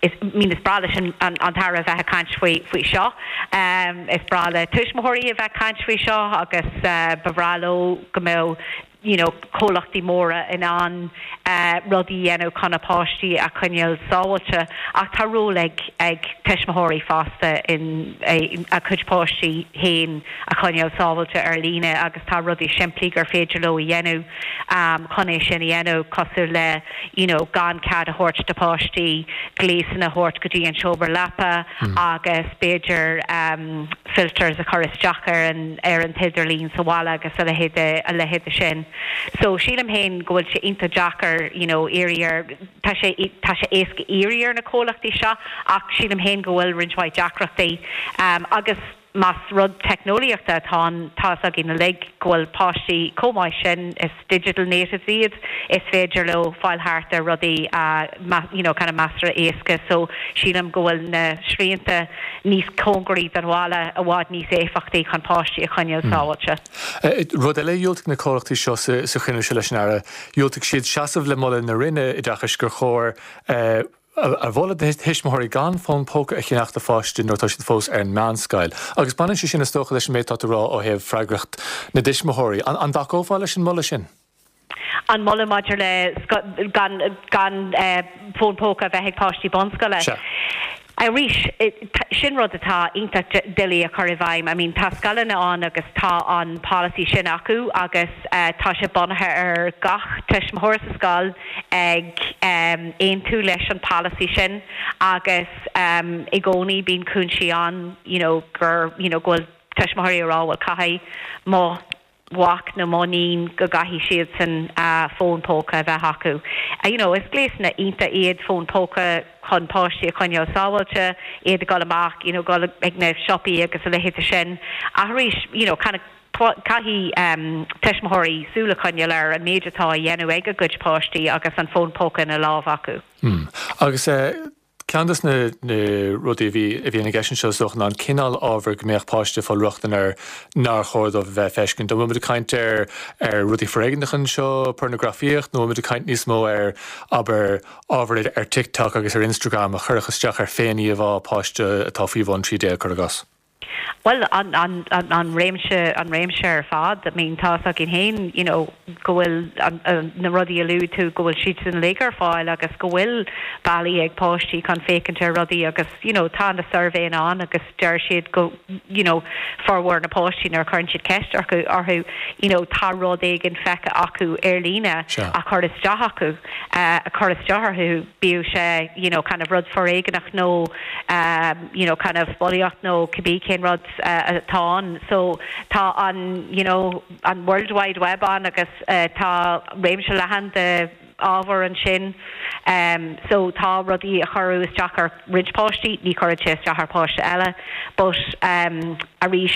is, I mean is breá leis an an tAire a bheith ag caint faoi faoi seo. Is breá le tuismitheoirí a bheith ag caint faoi seo agus ba bhreá leo go mbeadh you know comhlachtaí móra in ann rudaí a dhéanamh chun a bpáistí a choinneáil sábháilte ach tá ról ag ag tuismitheoirí fosta in a gcuid páistí féin a choinneáil sábháilte ar líne agus tá rudaí simplí gur féidir leo a dhéanamh chun é sin a dhéanamh cosúil le you know gan cead a thabhairt do pháistí gléasanna a thabhairt go dtí an seomra leapa agus b'fhéidir filters a chur isteach ar an ar an t-idirlíon sa bhaile agus a leithéid de a leithéid de sin. So sílim féin go bhfuil sé iontach deacair you know iarraidh ar tá sé tá sé éasca iarraidh ar na comhlachtaí seo ach sílim féin go bhfuil roinnt mhaith deacrachtaí agus Más rud teicneolaíochta atá ann, tá fhios againn uilig go bhfuil páistí chomh maith sin, is digital natives iad, is féidir leo fáil thart ar rudaí you know kind of measartha éasca so sílim go bhfuil na srianta níos cóngaraí don bhaile i bhfad níos éifeachtaí chun páistí a choinneáil sábháilte. Rud eile a dhiúltaigh na comhlachtaí seo sa chruinniú seo leis an Aire, dhiúltaigh siad seasamh le moladh na Roinne Oideachais gur chóir a mholadh do thuismitheoirí gan fón póca a cheannach do pháiste nuair atá siad fós ar an meánscoil. Agus baineann sé sin is dócha leis an méid atá tú a rá ó thaobh freagracht na dtuismitheoirí. An dtacófá leis an moladh sin? An moladh maidir le gan gan fón póca a bheith ag páistí bunscoile? Sea. Arís, sin rud atá iontach doiligh a chur i bhfeidhm. I mean tá scoileanna ann agus tá an polasaí sin acu agus tá sé bunaithe ar gach tuismitheoir sa scoil ag aontú leis an polasaí sin agus i gcónaí bíonn cúinsí ann you know gur you know go bhfuil tuismitheoirí ag rá bhuel caithfidh mo mhac nó mo níon go gcaithfidh siadsan fón póca a bheith acu. You know is gléasanna iontach iad fón póca chun páistí a choinneáil sábháilte, iad ag dul amach you know dul ag na siopaí agus a leithéid de sin ach arís you know kind of Caithfidh tuismitheoirí súil a choinneáil ar an méid atá á dhéanamh ag a gcuid páistí agus an fón póca ina lámh acu. Agus ceann de na rudaí a bhí a bhíonn i gceist anseo is dócha ná an cineál ábhair go mbeadh páiste ag fáil rochtain air nár chóir dóibh a bheith ag feiscint. An bhfuil muid ag caint ar ar rudaí foréigneacha anseo, pornagrafaíocht, nó an bhfuil muid ag caint níos mó ar, abair, ábhar ar TikTok agus ar Instagram a chuirfeadh isteach ar féin-íomhá páiste atá faoi bhun 13, cuir i gcás? Bhuel, an, an, an réimse, an réimse ar fad. I mean, tá fhios againn féin, you know, go bhfuil an, na rudaí a luaigh tú, go bhfuil siad uilig ar fáil agus go bhfuil bealaí ag páistí chun féachaint ar rudaí agus, you know, tá na suirbhéanna ann agus deir siad go, you know, formhór na páistí nuair a chuireann siad ceist orthu, orthu, you know, tá rud éigin feicthe acu ar líne a chuir isteach acu, a chuir isteach orthu, bíodh sé, you know, kind of rud foréigeanach nó, you know kind of bulaíocht nó cibé cén rud atá ann. So tá an you know an World Wide Web ann agus tá réimse leathan de ábhar ansin. So tá rudaí a chuireadh isteach ar roinnt páistí, ní chuireann sé isteach ar pháiste eile. But arís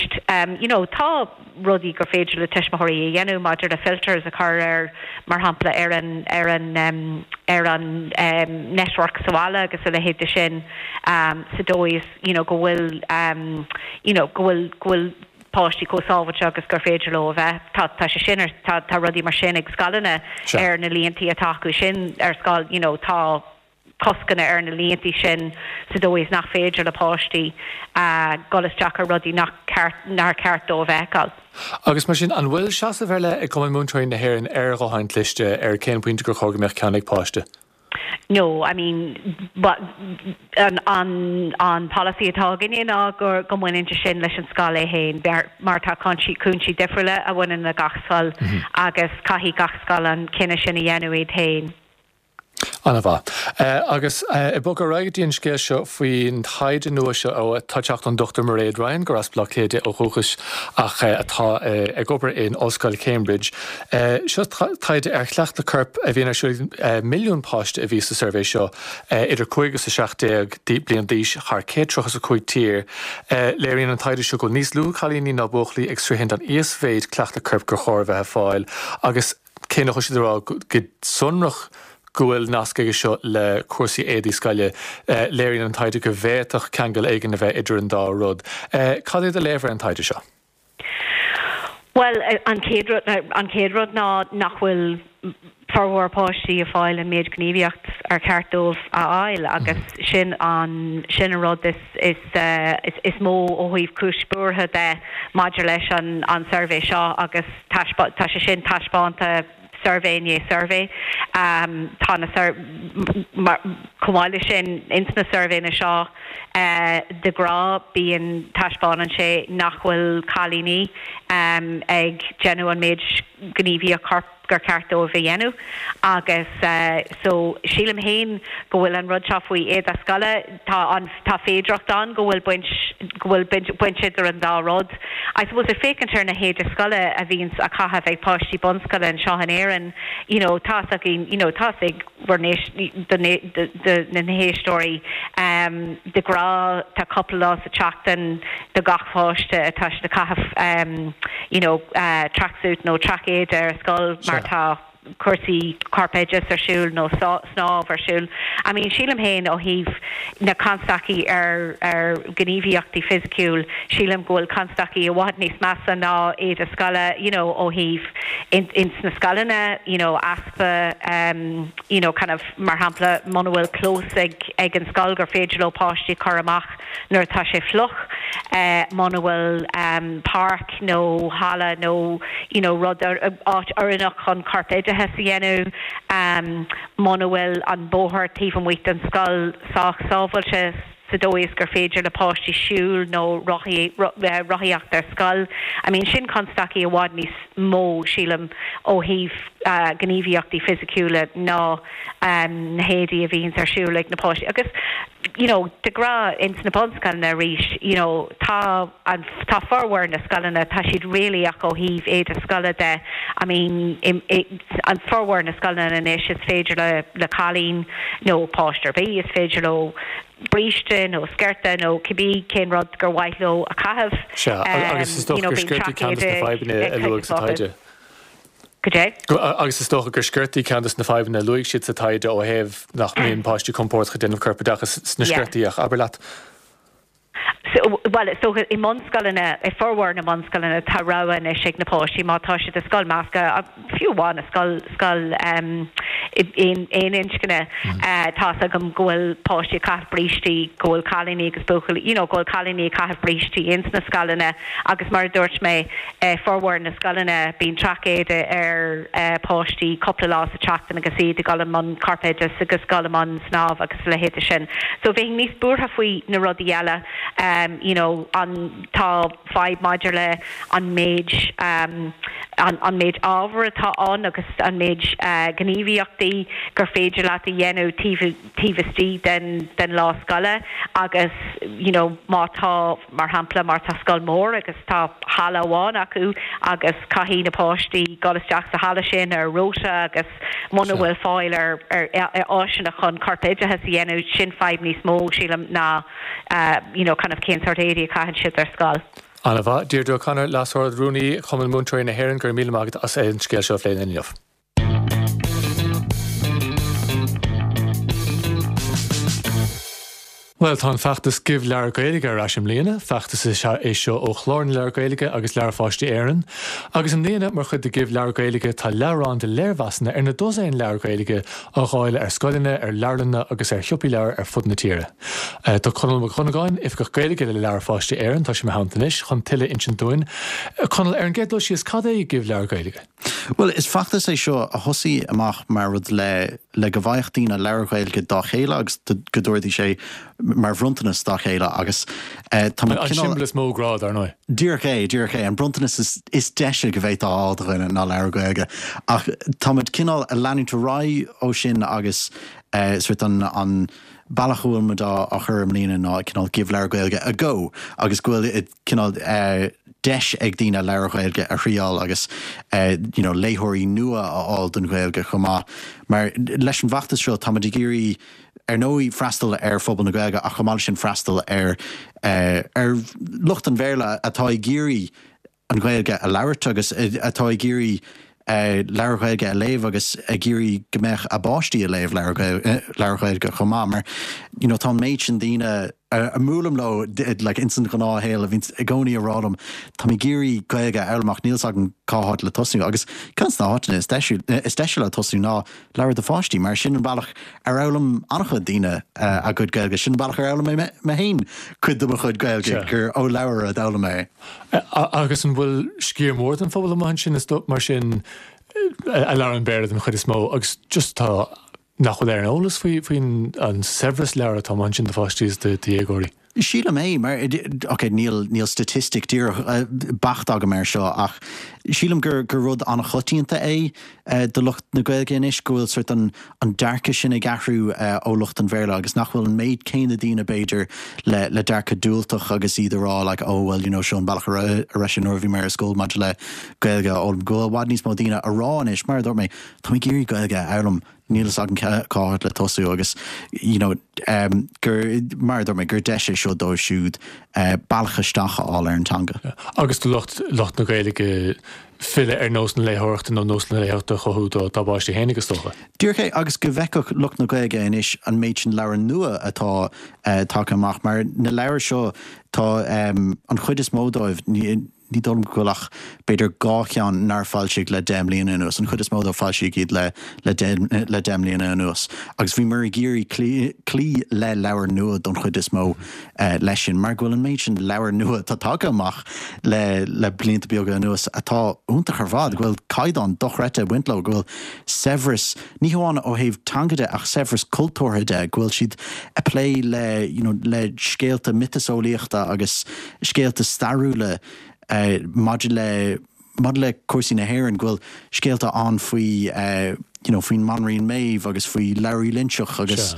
you know tá rudaí gur féidir le tuismitheoirí a dhéanamh maidir le filters a chur ar, mar shampla, ar an, ar an, ar an network sa bhaile agus a leithéid de sin sa dóigh is, you know, go bhfuil, you know, go bhfuil, go bhfuil páistí chomh sábháilte agus gur féidir leo a bheith. Tá, tá sé sin ar, tá, tá rudaí mar sin ag scoileanna ar na líontaí atá acu sin ar scoil, you know, tá. coscanna ar na líontaí sin sa dóigh is nach féidir le páistí dul isteach ar rudaí nach ceart, nár cheart dóibh a fheiceáil. Agus mar sin, an bhfuil seasamh ar leith ag Cumann Múinteoirí na hÉireann ar ghutháin chliste, ar cén pointe gur chóir go mbeadh ceann ag páiste? No, I mean, an, an, an polasaí atá againne ná go, go mbaineann sé sin leis an scoil é féin, mar tá cúinsí, cúinsí difriúla a bhaineann le gach scoil agus caithfidh gach scoil an cinneadh sin a dhéanamh iad féin. An-mhaith. Agus ag bogadh ar aghaidh go dtí an scéal seo faoin taighde nua seo atá ag teacht ón Dr Mairéad Ryan, gur as Baile Átha Cliath di ó dhúchas ach atá ag obair in Ollscoil Cambridge. Seo taighde ar chleachtadh coirp a bhíonn ar siúl ag milliún páiste a bhí sa suirbhé seo, idir 5 agus 17 bliain d'aois thar 135 tír. Léiríonn an taighde seo go bhfuil níos lú cailíní ná buachaillí ag sroichint an íosmhéid cleachtadh coirp gur chóir a bheith ag fáil agus Cé nach bhfuil siad ag rá go sonrach go bhfuil nasc aige seo le cúrsaí éadaí scoile, léiríonn an taighde go bhféadfadh ceangal éigin a bheith idir an dá rud. Cad é do léamh ar an taighde seo? Bhuel, an chéad rud, an chéad rud ná nach bhfuil formhór páistí ag fáil an méid gníomhaíocht ar cheart dóibh a fháil agus sin an, sin an rud is, is, is mó ó thaobh cúis buartha de maidir leis an, an suirbhé seo agus taispeá, tá sé sin taispeánta suirbhé i ndiaidh suirbhé. Tá na sur, mar, chomh maith leis sin, ins na suirbhéanna seo de ghnáth bíonn, taispeánann sé nach bhfuil cailíní ag déanamh an méid gníomhaíocht choirp gur ceart dóibh a dhéanamh agus so sílim féin go bhfuil an rud seo faoi éide scoile, tá an, tá féidearthacht ann go bhfuil baint, go bhfuil baint, baint idir an dá rud. I suppose ag féachaint ar na héide scoile a bhíonns á caitheamh ag páistí bunscoile anseo in Éirinn, you know, tá's againn, you know, tá's ag bhur n-éist, do, do na héisteoirí, de ghnáth tá cúpla lá sa tseachtain do gach pháiste atá siad ag caitheamh, you know, tracksuit nó traic-éide ar scoil mar tá cúrsaí corpoideachais ar siúl nó snámh ar siúl. I mean, sílim féin ó thaobh na constaicí ar ar ghníomhaíochtaí fisiciúil, sílim go bhfuil constaicí i bhfad níos measa ná éide scoile, you know, ó thaobh in ins na scoileanna, you know, easpa um, you know, kind of, mar shampla, muna bhfuil clós ag ag an scoil gur féidir leo páistí a chur amach nuair atá sé fliuch, muna bhfuil páirc nó halla nó you know rud, áit oiriúnach chun corpoideachas a dhéanamh, muna bhfuil an bóthar taobh amuigh den scoil sách sábháilte sa dóigh is gur féidir le páistí siúl nó rothaíocht ar scoil. I mean sin constaicí i bhfad níos mó, sílim, ó thaobh gníomhaíochtaí fisiciúla ná na héadaí a bhíonns ar siúl ag na páistí. Agus you know de ghnáth ins na bunscoileanna arís you know tá an tá formhór na scoileanna tá siad réalaíoch ó thaobh éide scoile de I mean i i an formhór na scoileanna anois is féidir le le cailín nó páiste ar bith is féidir leo bríste nó sciorta nó cibé cén rud gur mhaith leo a chaitheamh Sea, agus is you dócha know gur bíonn sciortaí ceann traic de na éide fadhbanna ag a cuid luadh sa acu. taighde. Cad é? Agus is dócha gur sciortaí ceann de na fadhbanna a luaigh siad sa taighde ó thaobh nach mbíonn páistí compordach ag déanamh corpoideachas sna Yeah. sciortaí ach abair leat. So, bhuel, is dócha i mbunscoileanna, i formhór na mbunscoileanna tá rogha anois ag na páistí má tá siad i scoil measctha, fiú amháin i scoil, scoil aon, aon inscne, tá's agam go bhfuil páistí ag caitheamh brístí, go bhfuil cailíní agus buachaillí, you know, go bhfuil cailíní ag caitheamh brístí ins na scoileanna agus mar a dúirt mé, I formhór na scoileanna, bíonn traic-éide ar pháistí cúpla lá sa tseachtain agus iad ag dul i mbun corpoideachais agus dul i mbun snámh agus a leithéide sin. So bheinn níos buartha faoi na rudaí eile, you know, an, tá fadhb maidir le an méid, an méid ábhair atá ann agus an méid gníomhaíochtaí gur féidir leat a dhéanamh taobh, taobh istigh den, den lá scoile agus, you know, má tá. Mar shampla, má tá scoil mór agus tá halla amháin acu agus caithfidh na páistí dul isteach sa halla sin ar rota agus muna bhfuil fáil ar áiseanna chun corpoideachas a dhéanamh, sin fadhb níos mó, sílim, ná you know kind of cén sórt éadaí a chaitheann siad ar scoil. An-mhaith. Deirdre O'Connor, Leas-Ard-Rúnaí Chumann Múinteoirí na hÉireann, go raibh míle maith agat as an scéal seo a phlé linn inniu. Bhuel, tá an feachtas Give Leabhar Gaeilge ar ais i mbliana. Feachtas is ea é seo ó Chlár na Leabhar Gaeilge agus Leabhair Pháistí Éireann. Agus i mbliana, mar chuid de Give Leabhar Gaeilge, tá leabhrán de léirmheasanna ar na dosaen leabhar Gaeilge á dháileadh ar scoileanna, ar leabharlanna agus ar shiopaí leabhar ar fud na tíre. Tá Conall Mac Dhonnagáin, Oifigeach Gaeilge le Leabhair Pháistí Éireann, tá sé i mo theannta anois chun tuilleadh a insint dúinn. Conall, ar an gcéad dul síos, cad é Give Leabhar Gaeilge? Bhuel, is feachtas é seo a thosaigh amach mar rud le le go bhfaigheadh daoine leabhair Ghaeilge dá chéile agus go dtabharfaidís é mar bhronntanas dá chéile agus tá muid An cineál. siombail is mó grá, dar ndóigh. Díreach é, díreach é. An bronntanas is is deise go bhféadfá a fháil do dhuine ná leabhar Gaeilge. Ach tá muid cineál ag leanúint ar aghaidh ó sin agus sort an an bealach a bhfuil muid á á chur i mbliana ná cineál Give Leabhar Gaeilge a go agus go bhfuil cineál deis ag daoine leabhair Ghaeilge a thriáil agus you know léitheoirí nua a fháil don Ghaeilge chomh maith. Mar leis an bhfeachtas seo táimid ag iarraidh ar ndóigh freastal ar phobal na Gaeilge ach chomh maith leis sin freastal ar ar lucht an Bhéarla atá ag iarraidh an Ghaeilge a labhairt agus atá ag iarraidh leabhair Ghaeilge a léamh agus ag iarraidh go mbeadh a bpáistí ag léamh leabhair Ghaeilge chomh maith mar you know tá an méid sin daoine. a mbuailim leo like ins an ghnáthshaol a bhíonns i gcónaí a rá liom táim ag iarraidh Gaeilge a fhoghlaim ach níl 's agam cá háit le tosnú agus ceann de na háiteanna is deise is deise le tosnú ná leabhar do pháistí mar sin an bealach ar fhoghlaim an-chuid daoine a gcuid Gaeilge, sin an bealach ar fhoghlaim mé mé féin cuid de mo chuid Gaeilge gur ó leabhar a d'fhoghlaim mé é. Agus an bhfuil sciar mór den phobal amuigh ansin is mar sin a labhrann Béarla den chuid is mó agus just tá nach bhfuil ar an eolas faoi faoin an saibhreas leabhar atá amuigh ansin do pháistí is do dhéagóirí. Sílim é, mar, ok, níl, níl staitistic díreach beacht agam air seo ach sílim gur, gur rud an-choitianta é do lucht na Gaeilge anois go bhfuil sort an, an dearcadh sin ag athrú ó lucht an Bhéarla agus nach bhfuil an méid céanna daoine b'fhéidir le, le dearcadh diúltach agus iad a rá like oh well you know seo an bealach a raibh, a raibh sé nuair a bhí mé ar scoil maidir le Gaeilge a fhoghlaim. Go bhfuil i bhfad níos mó daoine a rá anois, mar a dúirt mé, Tá mé ag iarraidh Gaeilge a fhoghlaim, níl fhios agam cá háit le tosú agus you know gur, mar a dúirt mé, gur deis é seo dóibh siúd bealach isteach a fháil ar an teanga. Agus do lucht, lucht na Gaeilge filleadh ar nós na léitheoireachta nó nós na léitheoireachta a chothú dá bpáistí féinig is dócha. Díreach é, agus go bhfeicfeadh lucht na Gaeilge anois an méid sin leabhar nua atá tagtha amach, mar na leabhair seo, tá an chuid is mó dóibh, Ní dóigh liom go bhfuil ach b'fhéidir 2 cheann nár foilsíodh le 10 mbliana anuas. An chuid is mó dóibh foilsíodh iad le le le 10 mbliana anuas. Agus bhíomar ag iarraidh cloí cloí le leabhair nua don chuid is mó leis sin mar go bhfuil an méid sin leabhar nua atá tagtha amach le le blianta beaga anuas atá iontach ar fad, go bhfuil caighdeán dochreidte ag baint leo, go bhfuil saibhreas, ní hamháin ó thaobh teanga de ach saibhreas cultúrtha de, go bhfuil siad ag plé le you know le scéalta miotaseolaíochta agus scéalta stairiúla maidir le maidir le cúrsaí na hÉireann, go bhfuil scéalta ann faoi you know faoin mBanríon Méabh agus faoi Labhraí Loinseach agus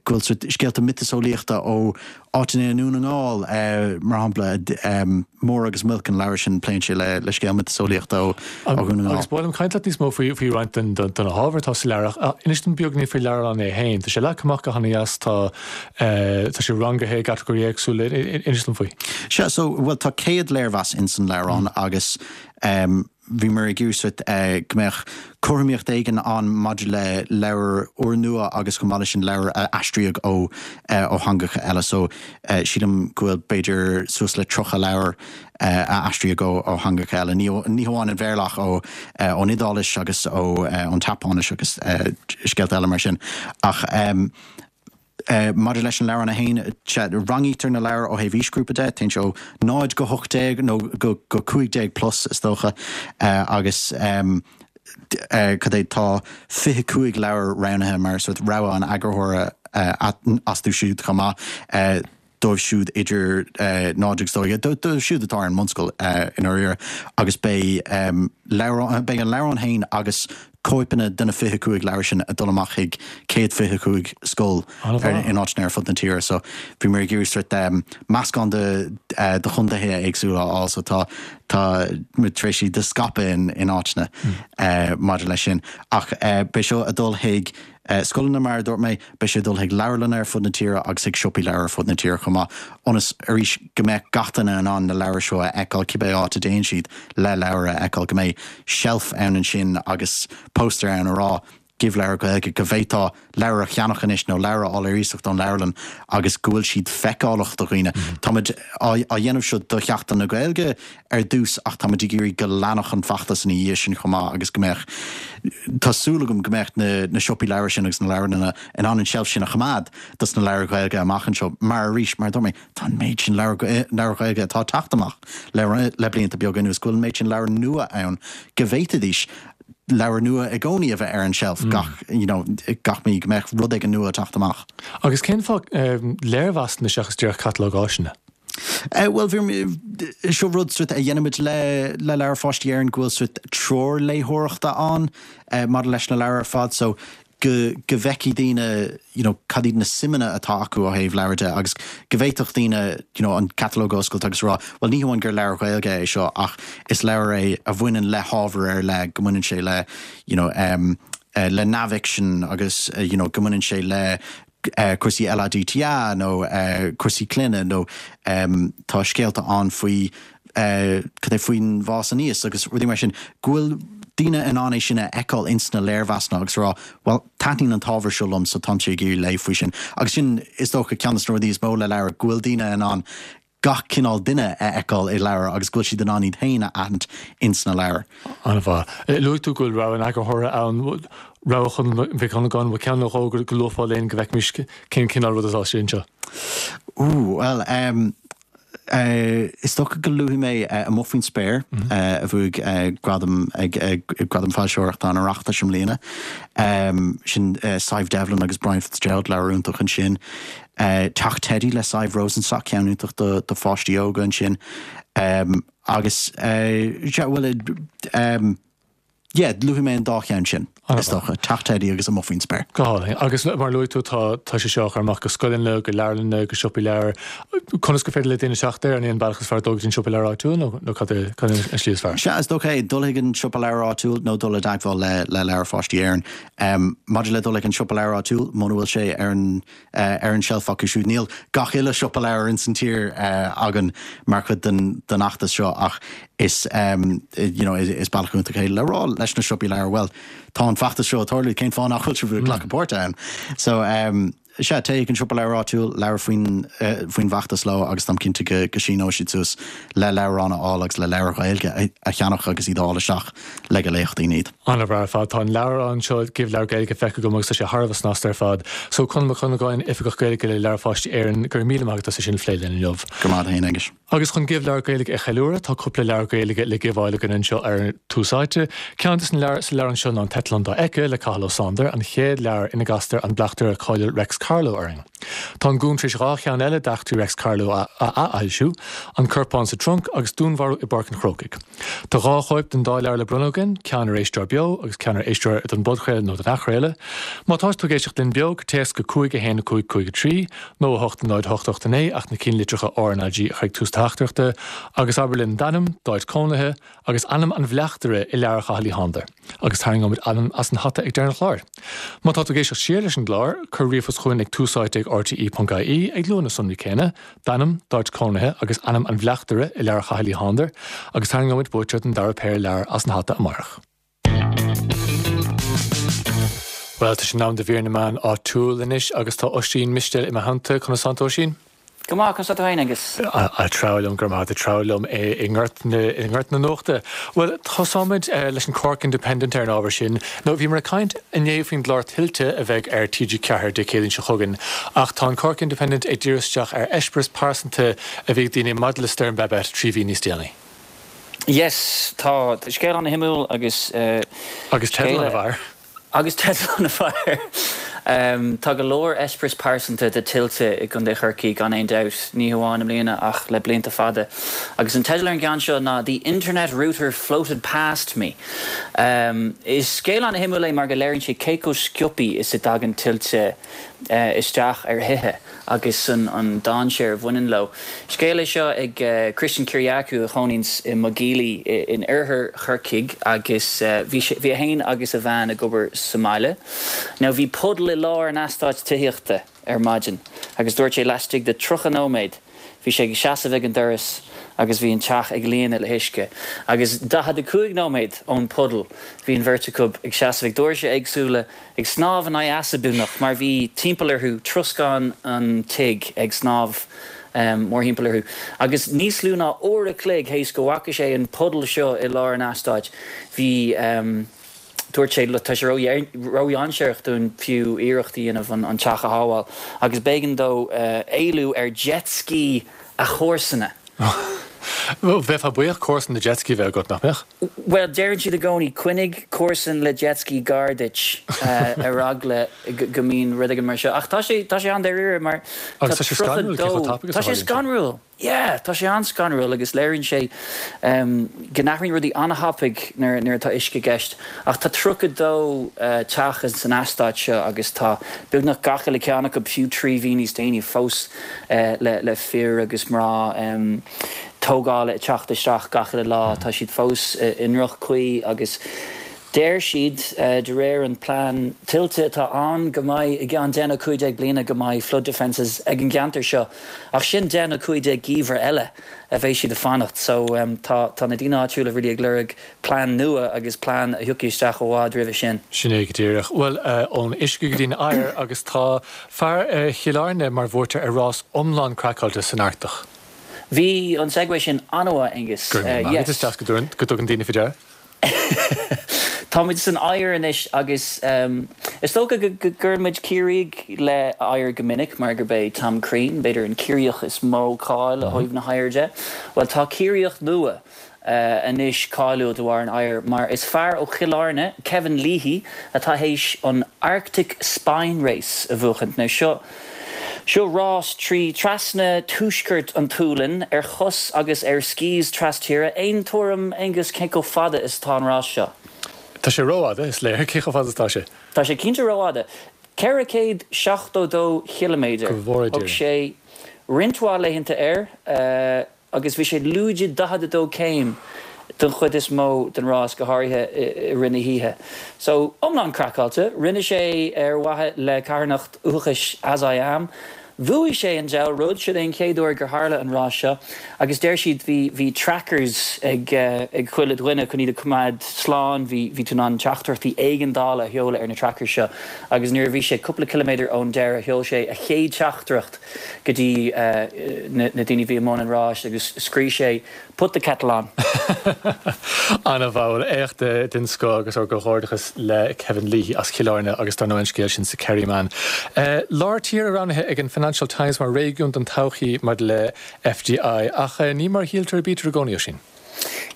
go bhfuil sort scéalta miotaseolaíochta ó áiteanna i nDún na nGall mar shampla Mór agus Muilc an leabhar sin pléann sé le le scéal miotaseolaíochta ó ó Dhún na nGall. Agus ba mhaith liom caint leat níos mó faoi faoi roinnt den de na hábhair atá sa leabhar ach inis dom beagán faoin leabhrán é féin. Tá sé leagtha amach go han-dheas, tá Tá sé rangaithe i gcatagóirí éagsúla. Inis dom faoi. Sea, so, bhuel, tá 100 léirmheas ins an leabhrán agus bhíomar ag iarraidh sort go mbeadh cothromaíocht éigin ann maidir le leabhair úrnua agus chomh maith leis sin leabhair a aistríodh ó ó theangacha eile. So, sílim go bhfuil b'fhéidir suas le 30 leabhar a aistríodh ó ó theangacha eile, ní ní hamháin an Bhéarla ach ó ón Iodáilis agus ó ón tSeapáinis agus scéalta eile mar sin. Ach. Maidir leis an leabhrán é féin, sea, rangaítear na leabhair ó thaobh aoisghrúpa de, téann sé ó 0 go 18 nó go 15 plus is dócha, agus cad é, tá 25 leabhar roghnaithe mar sort rogha an eagarthóra astu siúd chomh maith. dóibh siúd idir 0 agus 12, dóibh siúd atá ar an mbunscoil i ndáiríre, agus beidh leabhrán, beidh an leabhrán féin agus cóipeanna de na 25 leabhar sin ag dul amach chuig 125 scoil in áiteanna ar fud na tíre. So bhíomar ag iarraidh sort meascán de de chontaetha éagsúla a fháil so tá tá muid tar éis iad a scaipeadh in in áiteanna maidir leis sin. Ach beidh seo ag dul chuig scoileanna mar a dúirt mé, Beidh sé ag dul chuig leabharlanna ar fud na tíre agus chuig siopaí leabhar ar fud na tíre chomh maith, ionas, arís, go mbeadh gach duine in ann na leabhair seo a fheiceáil cibé áit a dtéann siad le leabhar a fheiceáil, go mbeidh seilf ann ansin agus póstaer ann a rá 'Gheobhaidh leabhar Gaeilge', go bhféadfá leabhar a cheannach anois nó leabhar a fháil ar iasacht ón leabharlann agus go bhfuil siad feiceálach do dhaoine. Táimid á dhéanamh seo do Sheachtain na Gaeilge ar dtús ach táimid ag iarraidh go leanfadh an feachtas ina dhiaidh sin chomh maith agus go mbeadh, tá súil agam go mbeadh na na siopaí leabhar sin agus na leabharlanna in ann an tseilf sin a choimeád dos na leabhair Ghaeilge amach anseo mar arís, mar a dúirt mé, tá an méid sin leabhar leabhair Ghaeilge atá ag teacht amach le le blianta beaga anuas, go bhfuil an méid sin leabhar nua ann go bhféadfaidís leabhar nua i gcónaí a bheith ar an tseilf gach, you know, gach mí, go mbeadh rud éigin nua ag teacht amach. Agus cén fáth léirmheasanna seachas díreach catalóg áiseanna? Bhuel, bhí, seo rud sort a dhéanaimid le le Leabhair Pháistí Éireann go bhfuil sort treoir léitheoireachta ann maidir leis na leabhair ar fad so go go bhfeicfidh daoine you know cad iad na suimeanna atá acu ó thaobh leabhar de agus go bhféadfadh daoine you know an catalóg a oscailt agus a rá bhuel ní hamháin gur leabhar Gaeilge é seo ach is leabhar é a bhaineann le hábhar ar leith, go mbaineann sé le you know le neamhfhicsean agus you know go mbaineann sé le cúrsaí LADTA nó cúrsaí clainne nó tá scéalta ann faoi cad é faoin bhfás aníos agus rudaí mar sin, go bhfuil. daoine in ann é sin a fheiceáil ins na léirmheasanna agus a rá, bhuel, taitníonn an t-ábhar seo liom so táimse ag iarraidh léamh faoi sin. Agus sin, is dócha, ceann de na rudaí is mó le leabhar, go bhfuil daoine in ann gach cineál duine a fheiceáil i leabhar agus go bhfuil siad in ann iad féin a aithint ins na leabhair. An-mhaith. Luaigh tú go bhfuil rogha an eagarthóra ann, rogha Chonal Mhic Dhonnagáin, bhfuil ceann nó dhó go luafá linn go bhfeicfimis cén cineál rud atá istigh anseo? Ooh, bhuel, em, is dócha go luafaidh mé Amuigh Faoin Spéir, a bhuaigh gradam ag Gradam Foilsitheoireachta an Oireachtais i mbliana. Sin Sadhbh Devlin agus Brian Fitzgerald, leabhar iontach ansin. Teach Teidí le Sadhbh Rosenstock, ceann iontach do pháistí óga ansin. Agus, sea, bhuel, yeah, luafaidh mé an dá cheann sin, is dócha, Teach Teidí agus Amuigh Faoin Spéir. Go hálainn. Agus mar a luaigh tú, tá tá sé seo á chur amach go scoileanna, go leabharlanna, go siopaí leabhar. Conas gur féidir le daoine teacht air? An é an bealach is fearr dul go dtí an siopa leabhar áitiúil nó nó cad é cad é an slí is fearr? Sea, is dócha é, dul chuig an siopa leabhar áitiúil nó dul i dteagmháil le le Leabhair Pháistí Éireann. Maidir le dul chuig an siopa leabhar áitiúil, muna bhfuil sé ar an ar an tseilf acu siúd. Níl gach uile siopa leabhar ins an tír againn mar chuid den den fheachtas seo ach is you know is bealach iontach é le rá leis na siopaí leabhar, bhuel, tá an feachtas seo ag tarlú, cén fáth nach bhfuil sibh ag glacadh páirte ann? So sea, téigh chuig an siopa leabhar áitiúil, labhair faoin faoin bhfeachtas leo agus táim cinnte go go síneoidh siad suas le leabhráin a fháil agus le leabhair Ghaeilge a cheannach agus iad a fháil isteach le go léifeadh daoine iad. An-mhaith ar fad. Tá an leabhrán seo, Give Leabhar Gaeilge, feicthe agam agus tá sé thar a bheith snasta ar fad. So, Conall Mac Dhonnagáin, Oifigeach Gaeilge le Leabhair Pháistí Éireann, go raibh míle maith agat as é sin a phlé linn inniu. Go raibh maith agat féin, Aengus. Agus chun Give Leabhar Gaeilge a cheiliúradh, tá cúpla leabhar Gaeilge le gibheáil againn anseo ar Tús Áite. Ceann de na leabhair sa leabhrán seo ná An tEitleán Dá Éice le Cathal Ó Sándair, an chéad leabhar ina gcastar an bleachtaire cáiliúil Reics Carló orainn. Tá an Gúm tar éis 2 cheann eile d'eachtraí Reics Carló a athfhoilsiú, An Corpán sa Trunc agus Dúnmharú i bPáirc an Chrócaigh. Tá 2 chóip den dá leabhar le bronnadh againn, ceann ar éisteoir beo agus ceann ar éisteoir don bpodchraoladh nó don athchraoladh. Má tá tú ag éisteacht linn beo, cuir téacs go 5 1 5 5 3 nó 8 0 8 8 9 ach na cinnlitreacha RnaG a chur ag tús do theachtaireachta agus abair linn d'ainm, d'áit cónaithe, agus ainm an bhleachtaire i leabhar Chathail Uí Shándair, agus tarraingeoimid ainm as an hata ag deireadh an chláir. Má tá tú ag éisteacht siar leis an gclár, cuir ríomhphost chugainn ag túsáite ag rte.ie ag lua na sonraí céanna, d'ainm, d'áit cónaithe agus ainm an bhleachtaire i leabhar Chathail Uí Shándair, agus tarraingeoimid buaiteoir den dara péire leabhar as an hata amárach. Bhuel, tá sé in am do mhír na meán áitiúil anois agus tá Oisín Mistéil i mo theannta. Conas tánn tú, Oisín? Go maith, conas tá tú féin, Aengus? Ag treabhadh liom, go raibh maith agat, ag treabhadh liom i ngort na, i ngort na nuachta. Bhuel, tosóimid leis an Cork Independent ar an ábhar sin. Nó bhíomar ag caint inné faoin gclár Tuilte a bheidh ar TG4 Dé Céadaoin seo chugainn, ach tá an Cork Independent ag díriú isteach ar eispéireas pearsanta a bhí ag daoine maidir le Stoirm Babet 3 mhí níos déanaí. Yes, tá scéal an-shuimiúil agus. Agus teideal an-mhaith. Agus teideal an-mhaith. Tá go leor eispéireas pearsanta de tuilte i gContae Chorcaí gan aon dabht, ní hamháin i mbliana ach le blianta fada. Agus an teideal ar an gceann seo ná The Internet Router Floated Past Me. Is scéal an-shuimiúil é mar go léiríonn sé cé chomh sciobtha is a dtagann tuilte isteach ar thithe agus an dainséar a bhaineann leo. Scéal é seo ag Christian Kyriacou a chónaíonns i Maigh Gílí in oirthear Chorcaigh agus bhí sé, bhí é féin agus a bhean ag obair sa mbaile. Now bhí puddle i lár an eastáit tithíochta ar maidin agus dúirt sé laistigh de 30 nóiméad Bhí sé ag seasamh ag an doras agus bhí an teach ag líonadh le huisce. Agus 45 nóiméad ón puddle bhí an bheirt acu ag seasamh ag doirse éagsúla, ag snámh in aghaidh easa beagnach, mar bhí timpeall orthu, troscán an tigh ag snámh mórthimpeall orthu. Agus níos lú ná uair a chloig théis go bhfaca sé an puddle seo i lár an eastáit, bhí. Dúirt sé, Tá sé ródhainséarach dúinn fiú iarracht a dhéanamh an teach a shábháil agus b'éigean dó éalú ar jet ski a chomharsana. Bheifeá buíoch comharsan le jet ski a bheith agat, nach mbeadh? Bhuel, deireann siad i gcónaí, coinnigh comharsan le jet ski gar duit ar eagla go mbíonn rud éigin mar seo. Ach tá sé, tá sé an-dáiríre mar tá Agus tá sé scanrúil cé chomh tapaidh is a tharlaíonn sé. Tá sé scanrúil! Yeah, tá sé an-scanrúil agus léiríonn sé go n-athraíonn rudaí an-thapaidh nuair atá uisce i gceist. Ach tá 32 teach san eastát seo agus tá beagnach gach uile ceann acu, fiú 3 mhí níos déanaí, fós le fir agus mná tógála ag teacht isteach gach uile lá. Tá siad fós i ndroch-chaoi agus. Deir siad, de réir an plean tuilte atá ann, go mbeidh i gceann 10 nó 15 bliana go mbeidh flood defences ag an gceantar seo ach sin 10 nó 15 geimhreadh eile a bheidh siad ag fanacht. So tá tá na daoine áitiúla really ag lorg plean nua agus plean a thiocfaidh isteach i bhfad roimhe sin. Sin é go díreach. Bhuel, ón uisce go dtí an oighear agus tá fear Chill Airne mar bhuaiteoir ar rás iomlán craiceáilte san Artach. Bhí an segue sin an-mhaith, Aengus. Go raibh míle maith agat, is deas go dtugann daoine faoi deara. Táimid san oighear anois agus is dócha go gcuireann muid Ciarraígh le oighear go minic mar gurb é Tom Crean, b'fhéidir, an Ciarraíoch is mó cáil ó thaobh na hoighir de. Bhuel, tá Ciarraíoch nua anois cáiliúil de bharr an oighir mar is fear ó Chill Airne, Kevin Leahy, atá théis an Arctic Spine Race a bhuachaint. Now seo. Seo rás trí trasna tuaisceart an tSualainn ar chos agus ar skis tras-tíre. Aon tuairim, Aengus, cé chomh fada is atá an rás seo? Tá sé rófhada, is léir. Cé chomh fada is atá sé? Tá sé cinnte rófhada. 472 chiliméadar. Go bhfóire Dia Thóg sé roinnt mhaith laethanta air. agus bhí sé lúide 42 céim don chuid is mó den rás, go háirithe i rith na hoíche. So, iomlán craiceáilte. Rinne sé ar mhaithe le carthanacht uathachais As I Am. Bhuaigh sé an diabhal rud, sin é an chéad uair gur tharla an rás seo agus deir siad bhí bhí trackers ag ag chuile dhuine chun iad a choimeád slán, bhí bhí tú in ann teachtaireachtaí éigeandála a sheoladh ar na trackers seo agus nuair a bhí sé cúpla ciliméadar ón deireadh sheol sé a chéad teachtaireacht go dtí na daoine a bhí i mbun an ráis agus scríobh sé 'Put the kettle on'. An-mhaith, éacht den scoth agus ár gcomhghairdeachas le Kevin Leahy as Cill Airne agus dar ndóigh an scéal sin sa Kerryman. Lár tíre roghnaithe ag an Financial Times mar réigiún don todhchaí maidir le FDI ach ní mar a shíltear a bítear i gcónaí, Oisín.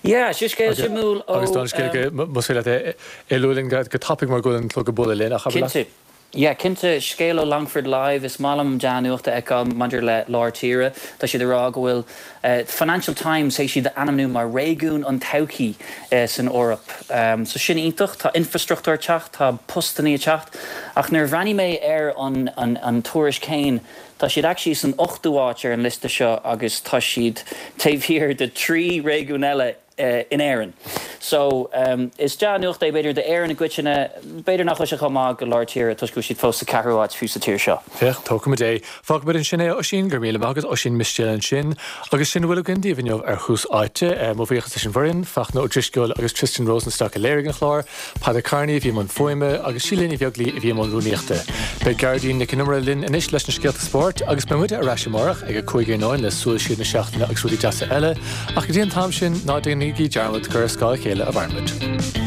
Yeah, seo scéal suimiúil ó. Agus don scéal go, más féidir leat é a lua linn go tapaidh mar go bhfuil an clog ag bualadh linn ach abair leat. Cinnte. Yeah, cinnte, scéal ó Longford Live, is maith liom dea-nuacht a fheiceáil maidir le lár tíre. Tá siad ag rá go bhfuil Financial Times théis iad a ainmniú mar réigiún an todhchaí san Eoraip. So sin iontach, tá infrastruchtúr ag teacht, tá postannaí ag teacht. Ach nuair a bhreathnaigh mé ar an an tuairisc féin, tá siad actually san ochtú áit ar an liosta seo agus tá siad taobh thiar de thrí réigiún eile in Éirinn. So, is dea-nuacht é b'fhéidir d'Éirinn i gcoitinne, b'fhéidir nach bhfuil sé chomh maith go lár tíre toisc go bhfuil siad fós sa ceathrú áit fiú sa tír seo. Féach, tógfaimid é. Fágfaimid ansin é, a Oisín, go raibh míle maith agat, Oisín Mistéil ansin. Agus sin a bhfuil againn daoibh inniu ar Thús Áite. Mo bhuíochas leis an bhfoireann, Fachtna Ó Drisceoil agus Tristan Rosenstock a léirigh an clár, Peadar Kearney a bhí i mbun fuaime agus Síle Ní Bheaglaoi a bhí i mbun rúnaíochta. Beidh Gearóidín Nic Con Iomaire linn anois leis na scéalta spóirt agus beidh muide ar ais amárach ag a 5 iarnóin le Súil Siar na Seachtaine agus rudaí deasa eile. Ach go dtí an t-am sin, ná déanaigí dearmad gur ar scáth a chéile a mhaireann muid.